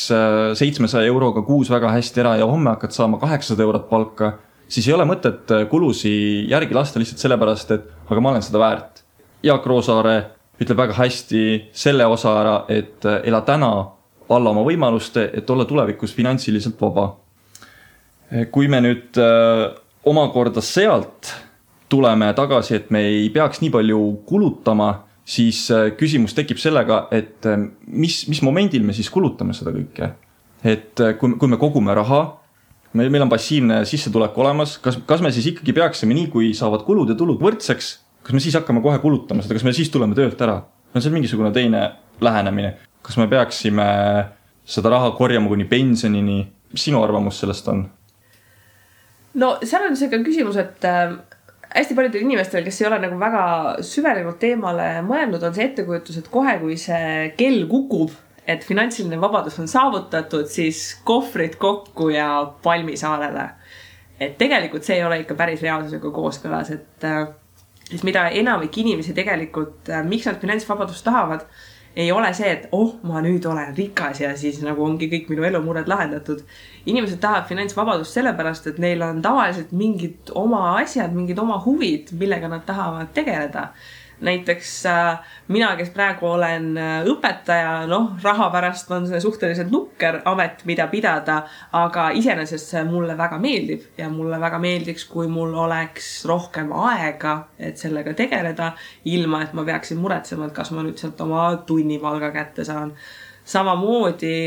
700 euroga kuus väga hästi ära ja homme hakkad saama 800 eurot palka, siis ei ole mõtet kulusi järgi lasta lihtsalt sellepärast, et aga ma olen seda väärt. Jaak Roosaare ütleb väga hästi selle osa ära, et ela täna alla oma võimaluste, et olla tulevikus finantsiliselt vaba. Kui me nüüd omakorda sealt tuleme tagasi, et me ei peaks nii palju kulutama, siis küsimus tekib sellega, et mis momendil me siis kulutame seda kõike. Et kui me kogume raha, meil on passiivne sissetulek olemas, kas me siis ikkagi peaksime nii, kui saavad kulud ja tulud võrdseks, kas me siis hakkame kohe kulutama seda, kas me siis tuleme töölt ära? On see mingisugune teine lähenemine. Kas me peaksime seda raha korjama kuni pensionini? Mis sinu arvamus sellest on? No seal on see ka küsimus, et hästi paljudel inimestel, kes ei ole nagu väga süvenenud teemale mõelnud, on see ettekujutus, et kohe, kui see kell kukub, et finantsiline vabadus on saavutatud, siis kohvrid kokku ja palmisaarele. Et tegelikult see ei ole ikka päris reaalsusega kooskõlas, et mida enamik inimesi tegelikult, miks nad finantsvabadust tahavad, ei ole see, et ma nüüd olen rikas ja siis nagu ongi kõik minu elumured lahendatud. Inimesed tahavad finantsvabadust sellepärast, et neil on tavaliselt mingid oma asjad, mingid oma huvid, millega nad tahavad tegeleda. Näiteks mina, kes praegu olen õpetaja, raha pärast on see suhteliselt nukker amet, mida pidada, aga iseenesest see mulle väga meeldib ja mulle väga meeldiks, kui mul oleks rohkem aega, et sellega tegeleda, ilma et ma peaksin muretsema, et kas ma nüüd sealt oma tunnipalga kätte saan. Samamoodi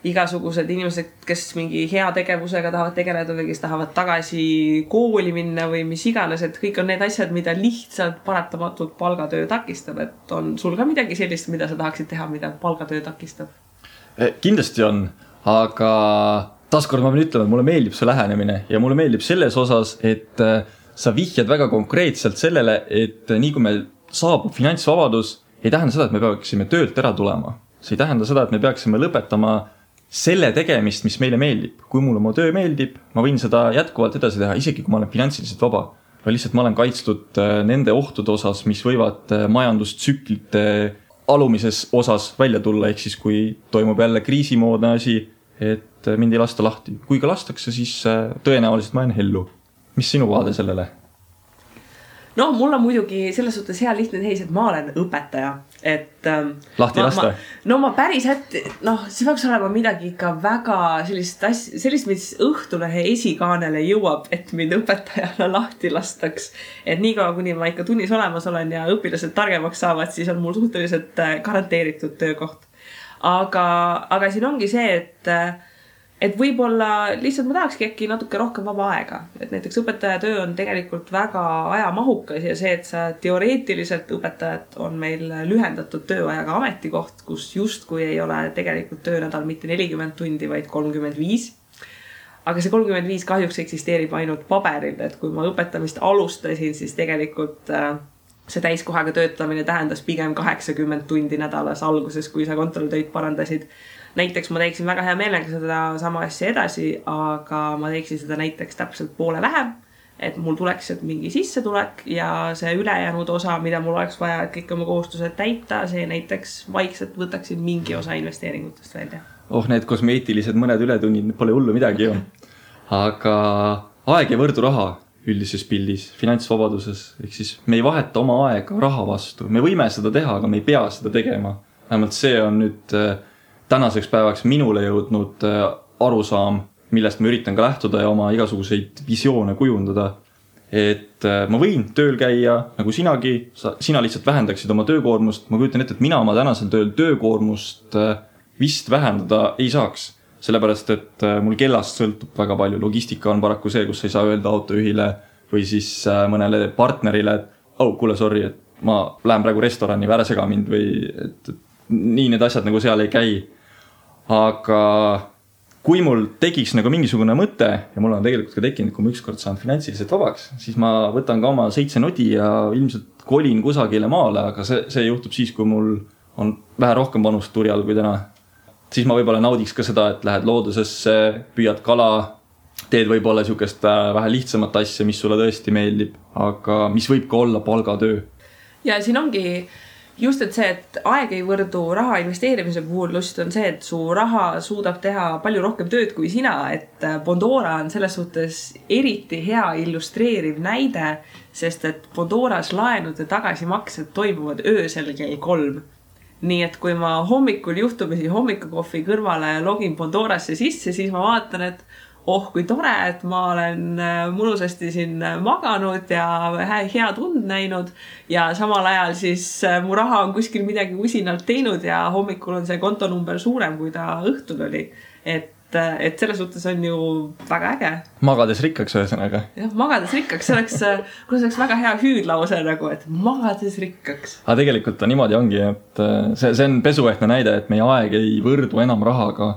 igasugused inimesed, kes mingi hea tegevusega tahavad tegeleda või kes tahavad tagasi kooli minna või mis iganes, et kõik on need asjad, mida lihtsalt paratamatult palgatöö takistab, et on sul ka midagi sellist, mida sa tahaksid teha, mida palgatöö takistab? Kindlasti on, aga taaskord ma pean ütlema, et mulle meeldib see lähenemine ja mulle meeldib selles osas, et sa vihjad väga konkreetselt sellele, et nii kui meil saabub finantsvabadus, ei tähenda seda, et me peaksime töölt ära tulema. See ei tähenda seda, et me peaksime lõpetama selle tegemist, mis meile meeldib. Kui mulle oma töö meeldib, ma võin seda jätkuvalt edasi teha, isegi kui ma olen finantsiliselt vaba. Või lihtsalt ma olen kaitstud nende ohtude osas, mis võivad majandustsüklite alumises osas välja tulla, ehk siis kui toimub jälle kriisimoodne asi, et mind ei lasta lahti. Kui ka lastakse, siis tõenäoliselt ma jään hellu. Mis sinu vaade sellele? No, mul on muidugi selles suhtes hea lihtne teis, et ma olen õpetaja. Et, lahti lasta? Ma päris see peaks olema midagi ikka väga sellist, mis Õhtulehe esikaanele jõuab, et mind õpetajana lahti lastaks. Et niikaua, kuni ma ikka tunnis olemas olen ja õpilased targemaks saavad, siis on mul suhteliselt garanteeritud töökoht. Aga siin ongi see, et võib-olla lihtsalt ma tahakski äkki natuke rohkem vaba aega. Et näiteks õpetaja töö on tegelikult väga ajamahukas ja see, et sa teoreetiliselt õpetajad on meil lühendatud tööajaga ametikoht, kus justkui ei ole tegelikult töönädal mitte 40 tundi, vaid 35. Aga see 35 kahjuks eksisteerib ainult paberil, et kui ma õpetamist alustasin, siis tegelikult see täiskohaga töötamine tähendas pigem 80 tundi nädalas alguses, kui sa kontrolltöid parandasid. Näiteks ma teeksin väga hea meelega seda sama asja edasi, aga ma teeksin seda näiteks täpselt poole vähem, et mul tuleks mingi sissetulek ja see ülejäänud osa, mida mul oleks vaja, et kõik oma kohustused täita, see näiteks vaikselt võtaksin mingi osa investeeringutest välja. Need kosmeetilised mõned ületunnid pole hullu midagi ju. Aga aeg ei võrdu raha üldises pildis, finantsvabaduses. Ehk siis me ei vaheta oma aega raha vastu. Me võime seda teha, aga me ei pea seda tegema. Vähemalt see on nüüd tänaseks päevaks minule jõudnud arusaam, millest ma üritan ka lähtuda ja oma igasuguseid visioone kujundada. Et ma võin tööl käia nagu sinagi, sina lihtsalt vähendaksid oma töökoormust. Ma kujutan ette, et mina oma tänasel tööl töökoormust vist vähendada ei saaks. Sellepärast, et mul kellast sõltub väga palju. Logistika on paraku see, kus ei saa öelda autojuhile või siis mõnele partnerile, et kuule, sorry, et ma lähen praegu restorani, ära sega mind või et nii need asjad nagu seal ei käi. Aga kui mul tekiks nagu mingisugune mõte ja mul on tegelikult ka tekkinud, kui ma ükskord saan finantsiliselt vabaks, siis ma võtan ka oma 7 nodi ja ilmselt kolin kusagile maale, aga see juhtub siis, kui mul on vähe rohkem panust turjal kui täna. Siis ma võib-olla naudiks ka seda, et lähed loodusesse, püüad kala, teed võib-olla sihukest vähe lihtsamat asja, mis sulle tõesti meeldib, aga mis võib ka olla palgatöö. Ja siin ongi just, et see, et aeg ei võrdu raha investeerimise puhul, just on see, et su raha suudab teha palju rohkem tööd kui sina, et Bondora on selles suhtes eriti hea illustreeriv näide, sest et Bondoras laenude tagasimaksed toimuvad öösel kell 3. Nii et kui ma hommikul juhtumisi hommikukohvi kõrvale login Bondorasse sisse, siis ma vaatan, et kui tore, et ma olen mõnusasti siin maganud ja hea tund näinud ja samal ajal siis mu raha on kuskil midagi usinalt teinud ja hommikul on see kontonumber suurem, kui ta õhtul oli. Et selles suhtes on ju väga äge. Magades rikkaks ühesõnaga. Jah, magades rikkaks. See oleks väga hea hüüdlause nagu, et magades rikkaks. Aga tegelikult niimoodi ongi, et see on pesuehtne näide, et meie aeg ei võrdu enam rahaga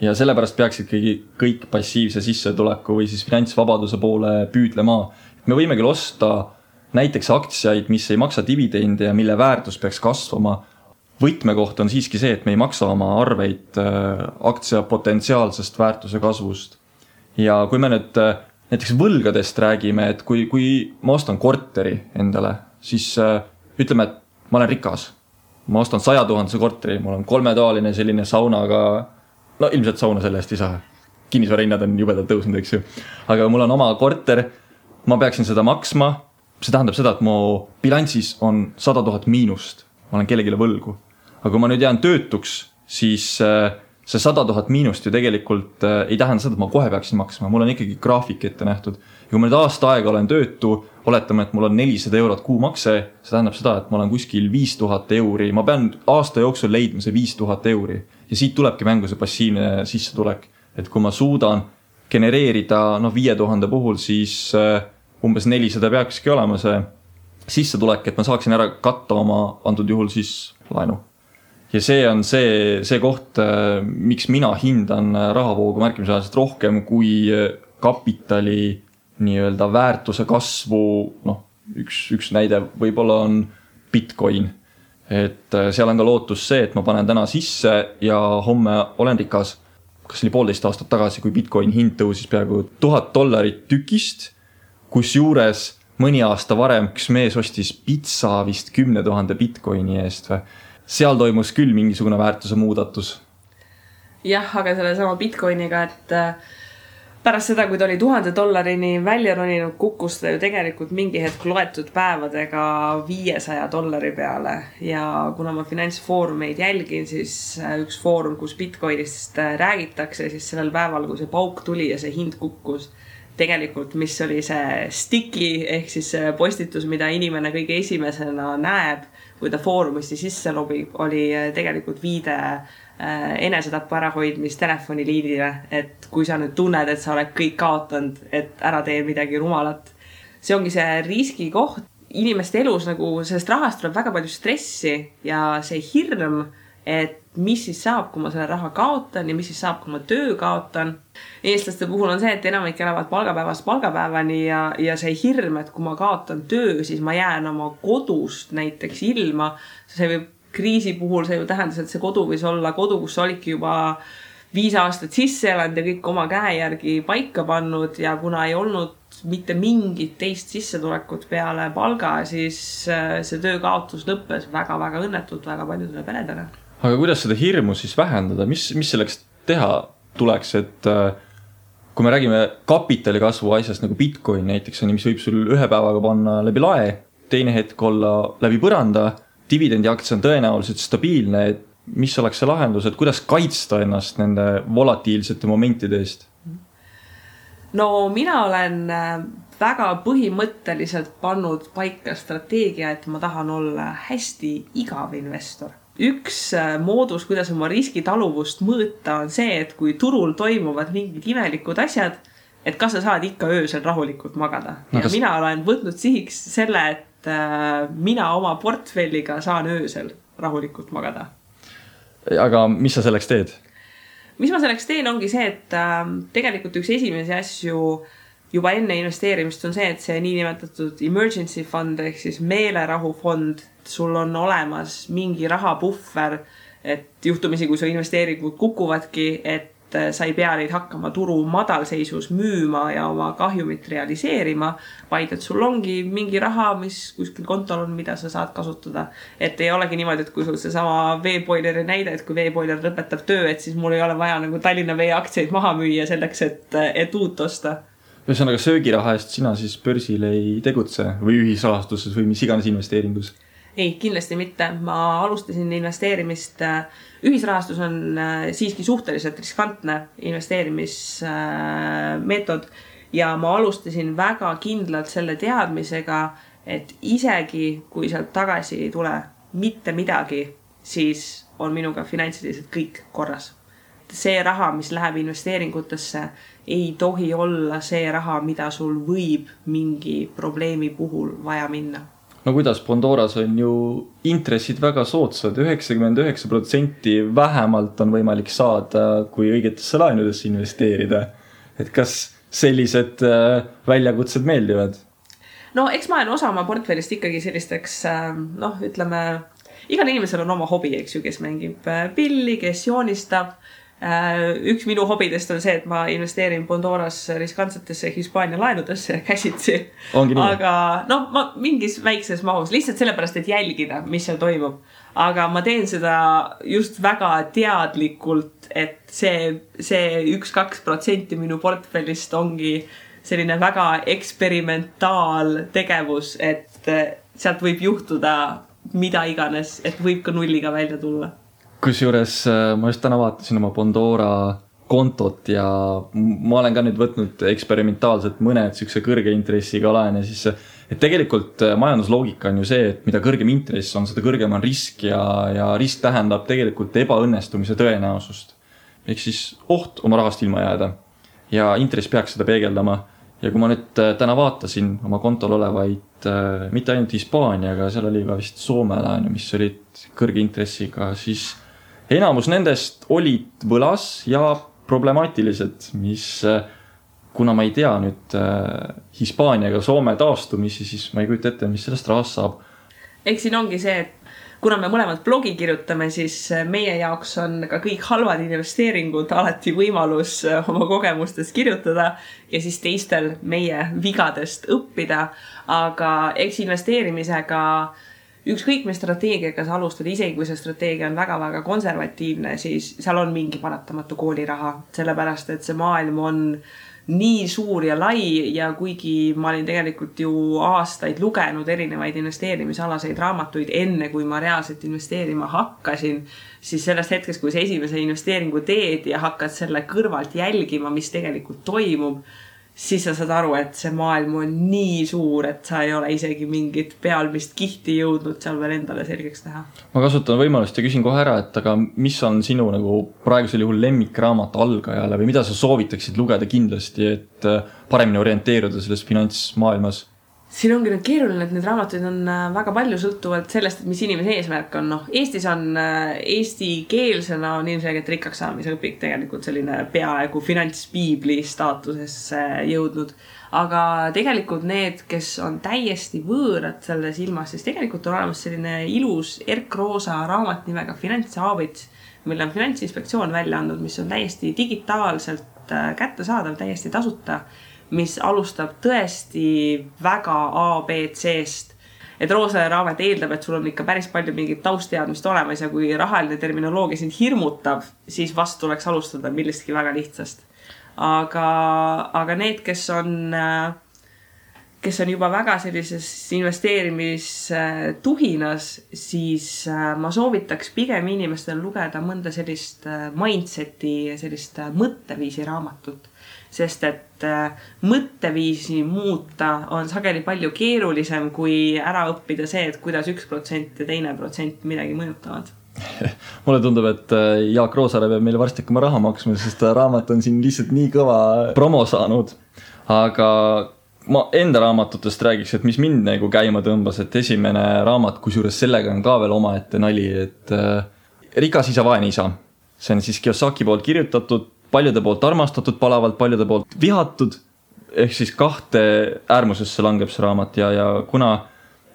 ja sellepärast peaksid kõik passiivse sissetuleku või siis finantsvabaduse poole püüdlema. Me võime küll osta näiteks aktsiaid, mis ei maksa dividende ja mille väärtus peaks kasvama. Võtmekoht on siiski see, et me ei maksa oma arveid aktsia potentsiaalsest väärtuse kasvust. Ja kui me nüüd näiteks võlgadest räägime, et kui ma ostan korteri endale, siis ütleme, et ma olen rikas. Ma ostan 100 000 korteri, mul on 3-toaline selline saunaga, no ilmselt sauna selle eest ei saa. Kinnisvarahinnad on jubedalt tõusnud, eks ju. Aga mul on oma korter, ma peaksin seda maksma. See tähendab seda, et mu bilansis on 100 000 miinust. Ma olen kellegile võlgu. Aga kui ma nüüd jään töötuks, siis see 100 000 miinust ju tegelikult ei tähenda seda, et ma kohe peaksin maksma. Mul on ikkagi graafik ette nähtud. Ja kui ma nüüd aasta aega olen töötu, oletame, et mul on 400 eurot kuumakse, see tähendab seda, et ma olen kuskil 5000 euri. Ma pean aasta jooksul leidma see 5000 euri. Ja siit tulebki mängu see passiivne sissetulek. Et kui ma suudan genereerida 5000 puhul, siis umbes 400 peakski olema see sissetulek, et ma saaksin ära katta oma antud juhul siis laenu. Ja see on see koht, miks mina hindan rahavoogu märkimisväärselt rohkem kui kapitali nii-öelda väärtuse kasvu. Üks näide võib-olla on Bitcoin. Et seal on ka lootus see, et ma panen täna sisse ja homme olen rikas. Kas oli 1,5 aastat tagasi, kui Bitcoin hind tõusis peaaegu $1000 tükist, kus juures mõni aasta varem üks mees ostis pitsa vist 10 000 Bitcoini eest või. Seal toimus küll mingisugune väärtuse muudatus. jah, aga selle sama Bitcoiniga, et pärast seda, kui ta oli $1000 välja roninud, kukkus ta ju tegelikult mingi hetk loetud päevadega $500 peale ja kuna ma finantsfoorumeid jälgin, siis üks foorum, kus Bitcoinist räägitakse, siis sellel päeval, kui see pauk tuli ja see hind kukkus, tegelikult, mis oli see sticky ehk siis see postitus, mida inimene kõige esimesena näeb, kui ta foorumisti sisse lobib, oli tegelikult viide enesetapu ärahoidmist telefoniliinile, et kui sa nüüd tunned, et sa oled kõik kaotanud, et ära tee midagi rumalat. See ongi see riski koht. Inimeste elus nagu sellest rahast tuleb väga palju stressi ja see hirm, et mis siis saab, kui ma selle raha kaotan ja mis siis saab, kui ma töö kaotan. Eestlaste puhul on see, et enamik elavad palgapäevast palgapäevani ja see hirm, et kui ma kaotan töö, siis ma jään oma kodust näiteks ilma. See võib kriisi puhul see ju tähendas, et see kodu võis olla kodu, kus sa olidki juba 5 aastat sisse elanud ja kõik oma käe järgi paika pannud ja kuna ei olnud mitte mingit teist sissetulekut peale palga, siis see töökaotus lõppes väga-väga õnnetult väga paljudele peredele. Aga kuidas seda hirmu siis vähendada? Mis selleks teha tuleks, et kui me räägime kapitali kasvu asjast nagu Bitcoin näiteks, mis võib sul ühe päevaga panna läbi lae, teine hetk olla läbi põranda, dividendi aktsia on tõenäoliselt stabiilne, et mis oleks see lahendus, et kuidas kaitsta ennast nende volatiilsete momentide eest? No mina olen väga põhimõtteliselt pannud paika strateegia, et ma tahan olla hästi igav investor. Üks moodus, kuidas oma riskitaluvust mõõta, on see, et kui turul toimuvad mingid imelikud asjad, et kas sa saad ikka öösel rahulikult magada. Ja mina olen võtnud sihiks selle, et mina oma portfelliga saan öösel rahulikult magada. Aga mis sa selleks teed? Mis ma selleks teen, ongi see, et tegelikult üks esimesi asju juba enne investeerimist on see, et see niinimetatud emergency fund ehk siis meelerahufond, sul on olemas mingi rahapuhver, et juhtumisi, kui su investeeringud kukuvadki, et sa ei pea neid hakkama turu madalseisus müüma ja oma kahjumit realiseerima, vaid et sul ongi mingi raha, mis kuskil kontol on, mida sa saad kasutada. Et ei olegi niimoodi, et kui sul see sama veepoileri näide, et kui veepoiler lõpetab töö, et siis mul ei ole vaja nagu Tallinna Vee aktsiaid maha müüa selleks, et uut osta. Ühesõnaga söögiraha eest sina siis börsil ei tegutse või ühisrahastuses või mis iganes investeeringus? Ei, kindlasti mitte. Ma alustasin investeerimist. Ühisrahastus on siiski suhteliselt riskantne investeerimismeetod ja ma alustasin väga kindlalt selle teadmisega, et isegi kui sealt tagasi ei tule mitte midagi, siis on minuga finantsiliselt kõik korras. See raha, mis läheb investeeringutesse, ei tohi olla see raha, mida sul võib mingi probleemi puhul vaja minna. No kuidas Pandoras on ju intressid väga soodsad, 99% vähemalt on võimalik saada, kui õigetesse laenudesse investeerida. Et kas sellised väljakutsed meeldivad? No eks ma olen osa oma portfellist ikkagi sellisteks, ütleme, igal inimesel on oma hobi, eks ju, kes mängib pilli, kes joonistab. Üks minu hobidest on see, et ma investeerin Pandoras riskantsetesse Hispaania laenudesse käsitsi. Aga ma mingis väikses mahus, lihtsalt sellepärast, et jälgida, mis seal toimub. Aga ma teen seda just väga teadlikult, et see 1-2% minu portfellist ongi selline väga eksperimentaaltegevus, et sealt võib juhtuda mida iganes, et võib ka nulliga välja tulla. Kusjuures ma just täna vaatasin oma Pandora kontot ja ma olen ka nüüd võtnud eksperimentaalselt mõned sükse kõrge intressiga laene, siis et tegelikult majandusloogika on ju see, et mida kõrgem intress on, seda kõrgem on risk ja risk tähendab tegelikult ebaõnnestumise tõenäosust. Ehk siis oht oma rahast ilma jääda ja intress peaks seda peegeldama. Ja kui ma nüüd täna vaatasin oma kontol olevaid mitte ainult Hispaaniaga, seal oli ka vist Soome laenu, mis olid kõrge intressiga, siis enamus nendest olid võlas ja problemaatilised, mis kuna ma ei tea nüüd Hispaaniaga Soome taastumisi, siis ma ei kujuta ette, mis sellest rahast saab. Eks siin ongi see, et kuna me mõlemad blogi kirjutame, siis meie jaoks on ka kõik halvad investeeringud alati võimalus oma kogemustest kirjutada ja siis teistel meie vigadest õppida. Aga eks investeerimisega ükskõik mis strateegiaga sa alustad, isegi kui see strateegia on väga-väga konservatiivne, siis seal on mingi paratamatu kooliraha, sellepärast et see maailm on nii suur ja lai ja kuigi ma olin tegelikult ju aastaid lugenud erinevaid investeerimisalaseid raamatuid enne, kui ma reaalselt investeerima hakkasin, siis sellest hetkest, kui sa esimese investeeringu teed ja hakkad selle kõrvalt jälgima, mis tegelikult toimub, siis sa saad aru, et see maailm on nii suur, et sa ei ole isegi mingit pealmist kihti jõudnud seal veel endale selgeks teha. Ma kasutan võimalust ja küsin kohe ära, et aga mis on sinu nagu praegusel juhul lemmikraamat algajale või mida sa soovitaksid lugeda kindlasti, et paremini orienteeruda selles finantsmaailmas? Siin ongi nüüd keeruline, et need raamatuid on väga palju sõltuvalt sellest, et mis inimese eesmärk on. Eestis on eestikeelsena on ilmselgelt rikkaks saamise õpik tegelikult selline peaaegu finantspiibli staatusesse jõudnud. Aga tegelikult need, kes on täiesti võõrad selles ilmas, siis tegelikult on olemas selline ilus erkroosa raamat nimega Finantshaabits, mille on Finantsinspektsioon välja andnud, mis on täiesti digitaalselt kättesaadav, täiesti tasuta, mis alustab tõesti väga ABC-st. Et roosale raamat eeldab, et sul on ikka päris palju mingit tausteadmist olemas ja kui rahaline terminoloogia sind hirmutab, siis vast tuleks alustada millestki väga lihtsast. Aga need, kes on juba väga sellises investeerimistuhinas, siis ma soovitaks pigem inimestel lugeda mõnda sellist mindseti, sellist mõtteviisi raamatut. Sest et mõtteviisi muuta on sageli palju keerulisem kui ära õppida see, et kuidas 1% ja 2% midagi mõjutavad. Mulle tundub, et Jaak Roosaare peab meile varsti hakkama raha maksma, sest raamat on siin lihtsalt nii kõva promo saanud. Aga ma enda raamatutest räägiks, et mis mind nagu käima tõmbas, et esimene raamat, kusjuures sellega on ka veel omaette nali, et Rikas isa, vaene isa. See on siis Kiyosaki poolt kirjutatud, paljude poolt armastatud palavalt, paljude poolt vihatud, ehk siis kahte äärmusesse langeb see raamat ja kuna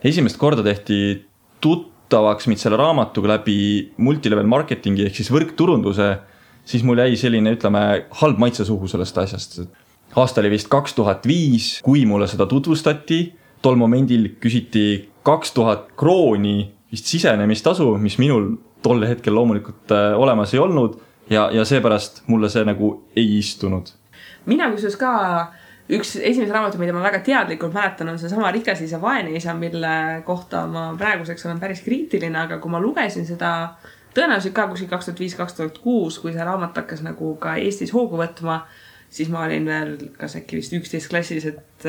esimest korda tehti tuttavaks mind selle raamatuga läbi multilevel marketingi ehk siis võrkturunduse, siis mul jäi selline, ütleme, halb maitse suhu sellest asjast. Aasta oli vist 2005, kui mulle seda tutvustati, tol momendil küsiti 2000 krooni vist sisenemistasu, mis minul tol hetkel loomulikult olemas ei olnud. Ja seepärast mulle see nagu ei istunud. Mina kusjuures ka üks esimese raamatu, mida ma väga teadlikult mäletan, on see sama Rikas isa, vaene isa, mille kohta ma praeguseks olen päris kriitiline, aga kui ma lugesin seda tõenäoliselt ka kuskil 2005-2006, kui see raamat hakkas nagu ka Eestis hoogu võtma, siis ma olin veel kas äkki vist 11 klassis, et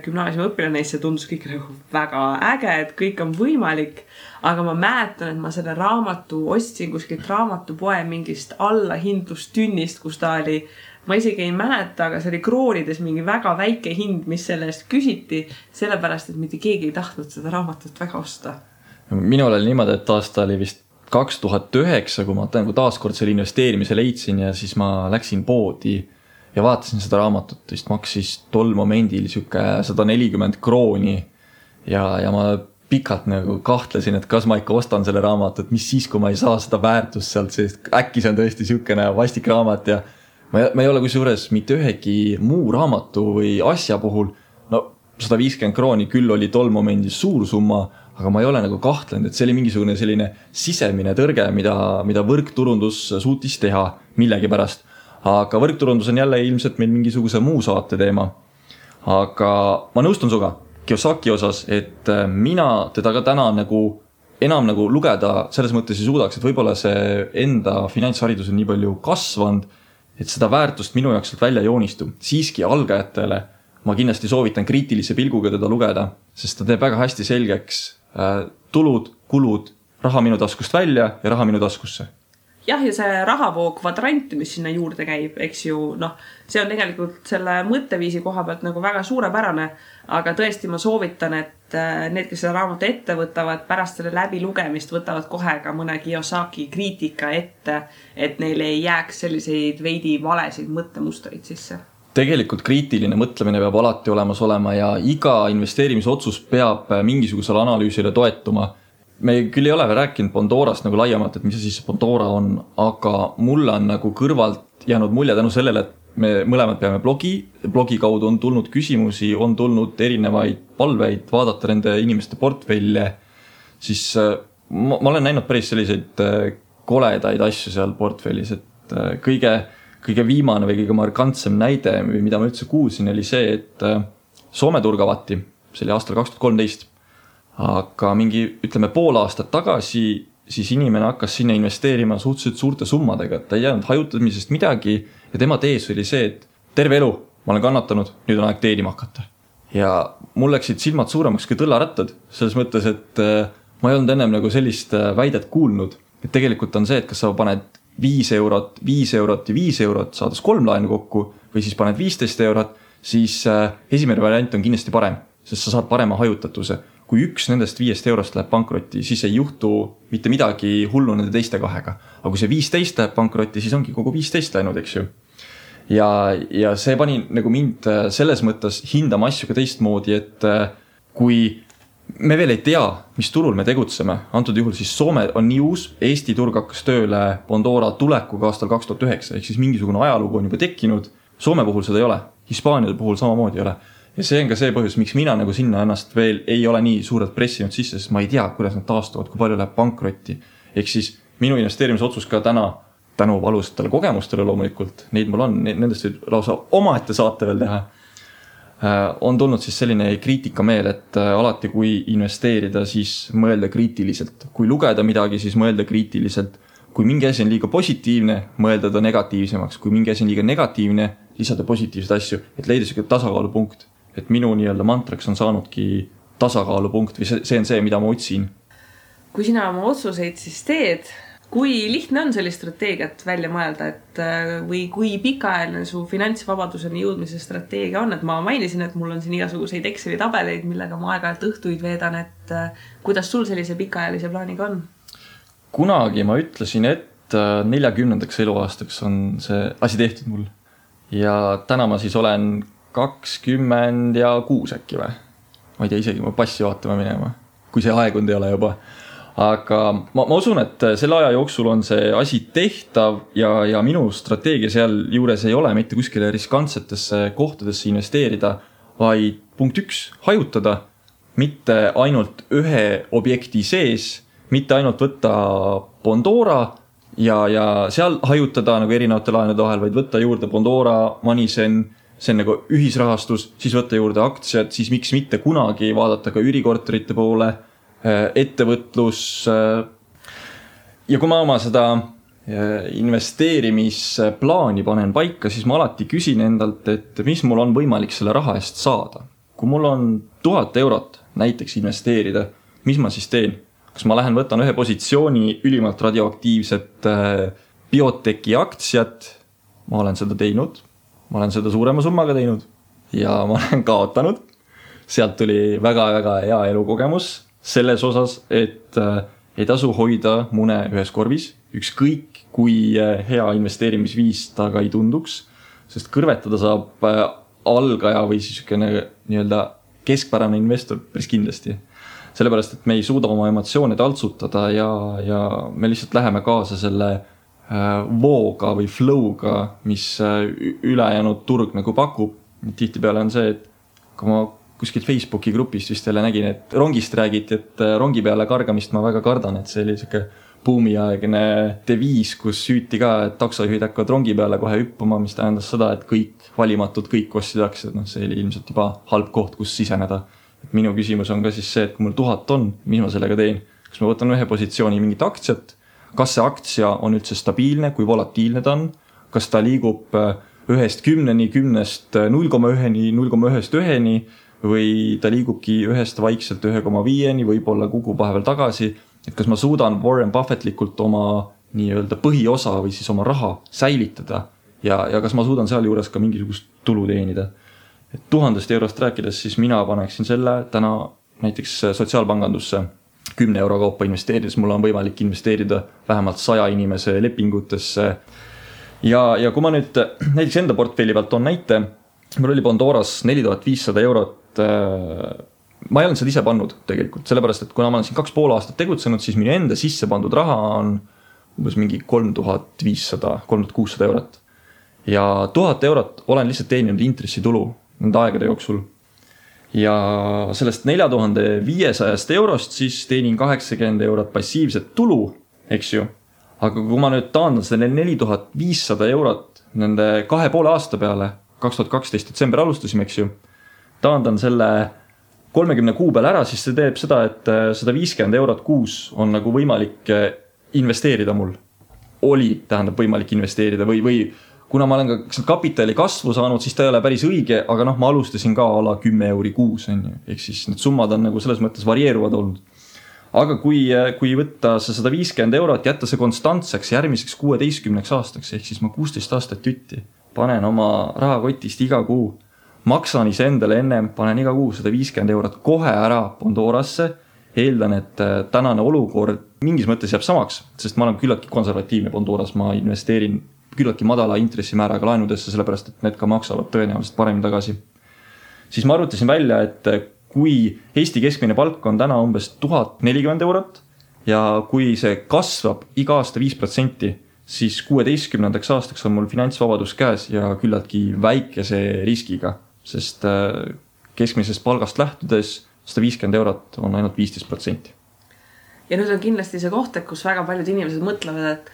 gümnaasiumi õpilane, see tundus kõik nagu väga äge, et kõik on võimalik. Aga ma mäletan, et ma selle raamatu ostsin kuskilt raamatupoe mingist allahindlustünnist, kus ta oli, ma isegi ei mäleta, aga see oli kroonides mingi väga väike hind, mis selle eest küsiti, sellepärast, et mitte keegi ei tahtnud seda raamatut väga osta. Minul oli niimoodi, et aasta oli vist 2009, kui ma taaskord selle investeerimise leidsin ja siis ma läksin poodi ja vaatasin seda raamatut, vist maksis tol momendil siuke 140 krooni ja ma pikalt nagu kahtlesin, et kas ma ikka ostan selle raamatut, mis siis, kui ma ei saa seda väärtust sealt, sest äkki see on tõesti siukene vastik raamat ja ma ei ole kusjuures mitte ühegi muu raamatu või asja puhul, no 150 krooni küll oli tol momendil suur summa, aga ma ei ole nagu kahtlenud, et see oli mingisugune selline sisemine tõrge, mida võrkturundus suutis teha millegi pärast. Aga võrkturundus on jälle ilmselt meil mingisuguse muu saate teema. Aga ma nõustun suga Kiyosaki osas, et mina teda ka täna nagu enam nagu lugeda selles mõttes ei suudaks, et võib-olla see enda finantsharidus on nii palju kasvanud, et seda väärtust minu jaoks välja joonistu. Siiski algajatele ma kindlasti soovitan kriitilise pilguga teda lugeda, sest ta teeb väga hästi selgeks tulud, kulud, raha minu taskust välja ja raha minu taskusse. Jah, ja see rahavoo kvadrant, mis sinna juurde käib, eks ju, see on tegelikult selle mõtteviisi koha pealt nagu väga suurepärane, aga tõesti ma soovitan, et need, kes seda raamatu ette võtavad, pärast selle läbilugemist võtavad kohe ka mõne Kiyosaki kriitika ette, et neile ei jääks selliseid veidi valesid mõttemustreid sisse. Tegelikult kriitiline mõtlemine peab alati olemas olema ja iga investeerimisotsus peab mingisugusele analüüsile toetuma. Me küll ei ole veel rääkinud Pandorast nagu laiemalt, et mis siis Pandora on, aga mulle on nagu kõrvalt jäänud mulje tänu sellele, et me mõlemad peame blogi kaudu on tulnud küsimusi, on tulnud erinevaid palveid vaadata nende inimeste portfelle, siis ma olen näinud päris selliseid koledaid asju seal portfellis, et kõige viimane või kõige markantsem näide, mida ma üldse kuulsin, oli see, et Soome turg avati, see oli aastal 2013, aga mingi, ütleme, pool aastat tagasi siis inimene hakkas sinna investeerima suhteliselt suurte summadega, et ta ei jäänud hajutamisest midagi ja tema tees oli see, et terve elu ma olen kannatanud, nüüd on aeg teenima hakata. Ja mul läksid silmad suuremaks kui tõllarattad, selles mõttes, et ma ei olnud ennem nagu sellist väidet kuulnud, et tegelikult on see, et kas sa paned 5 eurot ja 5 eurot, saades 3 laenu kokku või siis paned 15 eurot, siis esimene variant on kindlasti parem, sest sa saad parema hajutatuse. Kui üks nendest 5 eurost läheb pankrotti, siis ei juhtu mitte midagi hullu nende teiste kahega. Aga kui see 15 läheb pankrotti, siis ongi kogu 15 läinud, eks ju. Ja see pani nagu mind selles mõttes hindama asju ka teistmoodi, et kui me veel ei tea, mis turul me tegutseme, antud juhul siis Soome on nii uus, Eesti turg hakkas tööle Pandora tulekuga aastal 2009, ehk siis mingisugune ajalugu on juba tekkinud, Soome puhul seda ei ole, Hispaania puhul samamoodi ei ole. Ja see on ka see põhjus, miks mina nagu sinna ennast veel ei ole nii suurelt pressinud sisse, sest ma ei tea, kuidas nad taastuvad, kui palju läheb pankrotti. Ehk siis minu investeerimisotsus ka tänu valusatele kogemustele loomulikult, neid mul on, nendest võib lausa omaette saate veel teha, on tulnud siis selline kriitikameel, et alati kui investeerida, siis mõelda kriitiliselt. Kui lugeda midagi, siis mõelda kriitiliselt. Kui mingi asi on liiga positiivne, mõelda ta negatiivsemaks. Kui mingi asi on liiga negatiivne, lisada positiivseid asju, et leida selline tasakaalupunkt. Et minu nii-öelda mantraks on saanudki tasakaalupunkt või see on see, mida ma otsin. Kui sina oma otsuseid siis teed, kui lihtne on sellist strateegiat välja mõelda, et või kui pikaajaline su finantsvabaduseni jõudmise strateegia on, et ma mainisin, et mul on siin igasuguseid Exceli tabeleid, millega ma aeg-ajalt õhtuid veedan, et kuidas sul sellise pikaajalise plaaniga on? Kunagi ma ütlesin, et 40. eluaastaks on see asi tehtud mul ja täna ma siis olen 26 äkki või? Ma ei tea isegi, ma passi vaatama minema, kui see aegund ei ole juba. Aga ma usun, et selle aja jooksul on see asi tehtav ja minu strateegia seal juures ei ole mitte kuskile riskantsetesse kohtadesse investeerida, vaid punkt 1, hajutada, mitte ainult ühe objekti sees, mitte ainult võtta Pandora ja seal hajutada nagu erinevate laenude vahel, vaid võtta juurde Pandora, Manisen, see on nagu ühisrahastus, siis võtta juurde aktsiad, siis miks mitte kunagi vaadata ka üürikorterite poole, ettevõtlus. Ja kui ma oma seda investeerimisplaani panen paika, siis ma alati küsin endalt, et mis mul on võimalik selle raha eest saada. Kui mul on 1000 eurot näiteks investeerida, mis ma siis teen? Kas ma lähen võtan ühe positsiooni ülimalt radioaktiivset bioteki aktsiat, ma olen seda teinud, ma olen seda suurema summaga teinud ja ma olen kaotanud. Sealt tuli väga-väga hea elukogemus selles osas, et ei tasu hoida mune ühes korvis, ükskõik kui hea investeerimisviis ta ka ei tunduks, sest kõrvetada saab algaja või siis nii-öelda keskpärane investor päris kindlasti. Sellepärast, et me ei suuda oma emotsioone taltsutada ja me lihtsalt läheme kaasa selle vooga või flow'ga, mis ülejäänud turg nagu pakub. Tihtipeale on see, et kui ma kuskil Facebooki grupist vist jälle nägin, et rongist räägiti, et rongi peale kargamist ma väga kardan, et see oli selline buumiaegne deviis, kus süüti ka, et taksojuhid hakkavad rongi peale kohe hüppama, mis tähendas seda, et kõik valimatud, kõik ostsid aktsiad, see oli ilmselt juba halb koht, kus siseneda. Et minu küsimus on ka siis see, et kui mul 1000 on, mis ma sellega teen? Kas ma võtan ühe positsiooni mingit aktsiat? Kas see aktsia on üldse stabiilne, kui volatiilne ta on? Kas ta liigub 1-10-ni, 10-st 0,1-ni, 0,1-1-ni või ta liigubki 1-st vaikselt 1,5-ni, võib-olla kukub vahepeal tagasi? Et kas ma suudan Warren Buffettlikult oma nii-öelda põhiosa või siis oma raha säilitada ja kas ma suudan seal juures ka mingisugust tulu teenida? Et 1000 eurost rääkides, siis mina paneksin selle täna näiteks sotsiaalpangandusse 10 euro kaupa investeerides, mul on võimalik investeerida vähemalt 100 inimese lepingutesse. Ja kui ma nüüd näiteks enda portfelli pealt on näite, mul oli Pandoras 4500 eurot. Ma ei olnud seda ise pannud tegelikult, sellepärast, et kuna ma olen siin 2,5 aastat tegutsenud, siis minu enda sisse pandud raha on umbes mingi 3500, 3600 eurot. Ja 1000 eurot olen lihtsalt teeninud intressitulu nende aegade jooksul. ja sellest 4500 eurost siis teenin 80 eurot passiivset tulu, eks ju. Aga kui ma nüüd taandan selle 4500 eurot nende 2,5 aasta peale, 2012 detsember alustasime, eks ju, taandan selle 30 kuu peale ära, siis see teeb seda, et 150 eurot kuus on nagu võimalik investeerida mul. Tähendab võimalik investeerida või kuna ma olen ka kapitali kasvu saanud, siis ta ei ole päris õige, aga ma alustasin ka ala 10 euri kuus, ehk siis need summad on nagu selles mõttes varieeruvad olnud. Aga kui võtta see 150 eurot, jätta see konstantseks järgmiseks 16 aastaks, ehk siis ma 16 aastat jutti, panen oma rahakotist iga kuu, maksan ise endale ennem, panen iga kuu 150 eurot kohe ära Pandorasse, eeldan, et tänane olukord mingis mõttes jääb samaks, sest ma olen küllaltki konservatiivne Pandoras, ma investeerin küllaltki madala intressimääraga laenudesse, sellepärast, et need ka maksavad tõenäoliselt paremini tagasi. Siis ma arvutasin välja, et kui Eesti keskmine palk on täna umbes 1040 eurot ja kui see kasvab iga aasta 5%, siis 16 aastaks on mul finantsvabadus käes ja küllaltki väikese riskiga, sest keskmisest palgast lähtudes 150 eurot on ainult 15%. Ja nüüd on kindlasti see koht, kus väga paljud inimesed mõtlevad, et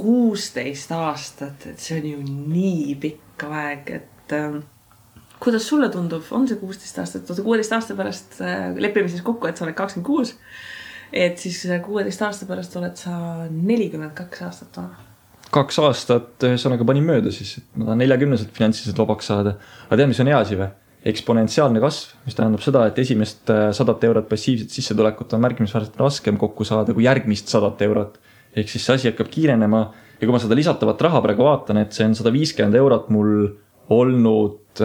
16 aastat, et see on ju nii pikka aeg, et kuidas sulle tundub, on see 16 aastat, 16 aasta pärast lepime siis kokku, et sa oled 26, et siis 16 aasta pärast oled sa 42 aastat vana. 2 aastat ühesõnaga panin mööda siis, et ma tahan 40-selt finantsiliselt vabaks saada. Aga tead, mis on hea asi või? Eksponentsiaalne kasv, mis tähendab seda, et esimest 100 eurot passiivset sissetulekut on märkimisväärselt raskem kokku saada kui järgmist 100 eurot. Ehk siis see asi hakkab kiirenema ja kui ma seda lisatavat raha praegu vaatan, et see on 150 eurot mul olnud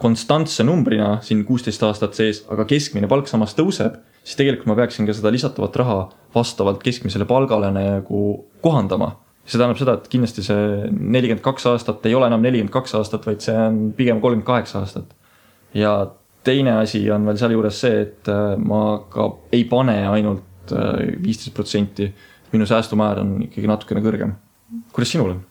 konstantse numbrina siin 16 aastat sees, aga keskmine palk samas tõuseb, siis tegelikult ma peaksin ka seda lisatavat raha vastavalt keskmisele palgale nagu kohandama. See tähendab seda, et kindlasti see 42 aastat ei ole enam 42 aastat, vaid see on pigem 38 aastat. Ja teine asi on veel seal juures see, et ma ka ei pane ainult 15%. Minu säästumäär on ikkagi natukene kõrgem. Kuidas sinul on?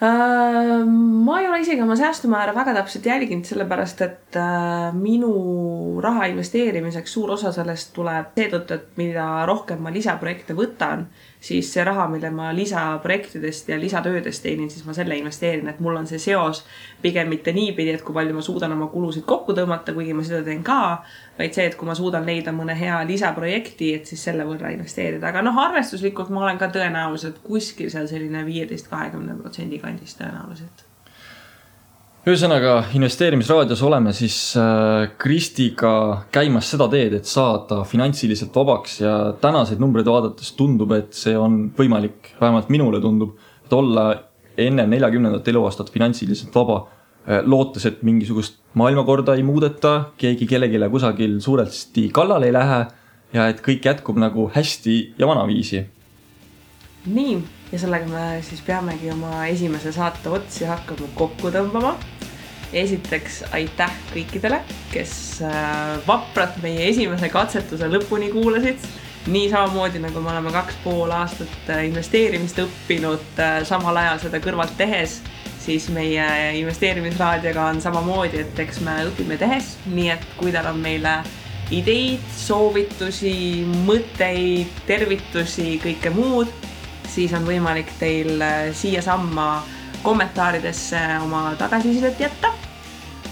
Ma ei ole isegi oma säästumäära väga täpselt jälginud, sellepärast, et minu raha investeerimiseks suur osa sellest tuleb seetõttu, et mida rohkem ma lisaprojekte võtan, siis see raha, mille ma lisaprojektidest ja lisatöödest teenin, siis ma selle investeerin, et mul on see seos pigem mitte niipidi, et kui palju ma suudan oma kulusid kokku tõmmata, kuigi ma seda teen ka, vaid see, et kui ma suudan leida mõne hea lisaprojekti, et siis selle võrra investeerida. Aga arvestuslikult ma olen ka tõenäoliselt kuskil seal selline 15-20% kandis tõenäoliselt. Ühesõnaga, investeerimisraadios oleme siis Kristiga käimas seda teed, et saada finantsiliselt vabaks ja tänaseid numbreid vaadates tundub, et see on võimalik, vähemalt minule tundub, et olla enne 40. eluaastat finantsiliselt vaba, lootes, et mingisugust maailmakorda ei muudeta, keegi kellegile kusagil suuresti kallal ei lähe ja et kõik jätkub nagu hästi ja vanaviisi. Nii, ja sellega me siis peamegi oma esimese saate otsi hakkama kokku tõmbama. Esiteks aitäh kõikidele, kes vapralt meie esimese katsetuse lõpuni kuulasid. Nii samamoodi, nagu me oleme 2,5 aastat investeerimist õppinud samal ajal seda kõrvalt tehes, siis meie investeerimisraadioga on samamoodi, et eks me õpime tehes. Nii et kui teil on meile ideid, soovitusi, mõtteid, tervitusi, kõike muud, siis on võimalik teil siia samma kommentaaridesse oma tagasisidet jätta.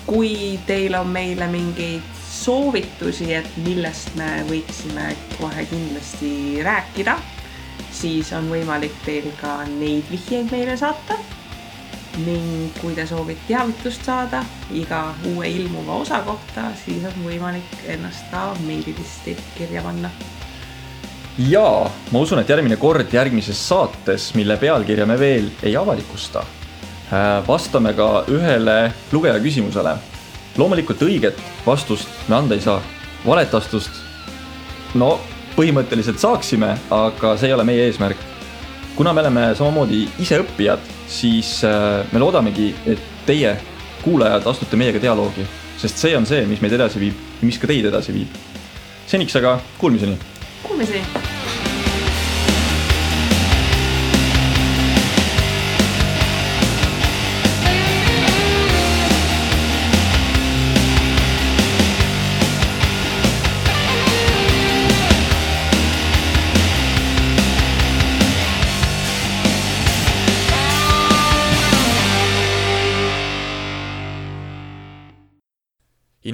Kui teil on meile mingeid soovitusi, et millest me võiksime kohe kindlasti rääkida, siis on võimalik teil ka neid vihjeid meile saata. Ning kui te soovite teavitust saada iga uue ilmuva osa kohta, siis on võimalik ennast ka meililisti kirja panna. Ja ma usun, et järgmine kord järgmises saates, mille pealkirja me veel ei avalikusta, vastame ka ühele lugeja küsimusele. Loomulikult õiget vastust me anda ei saa. Valetastust, no põhimõtteliselt saaksime, aga see ei ole meie eesmärk. Kuna me oleme samamoodi ise õppijad, siis me loodamegi, et teie kuulajad astute meiega dialoogi, sest see on see, mis meid edasi viib ja mis ka teid edasi viib. Seniks aga kuulmiseni! Kuulmiseni!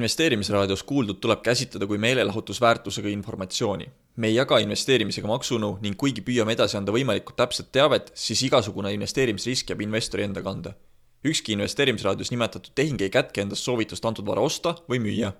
investeerimisraadios kuuldud tuleb käsitleda kui meelelahutusväärtusega informatsiooni. Me ei jaga investeerimisega maksunu ning kuigi püüame edasi anda võimalikult täpset teavet, siis igasugune investeerimisrisk jääb investori enda kanda. Ükski investeerimisraadios nimetatud tehing ei kätke endast soovitust antud vara osta või müüa.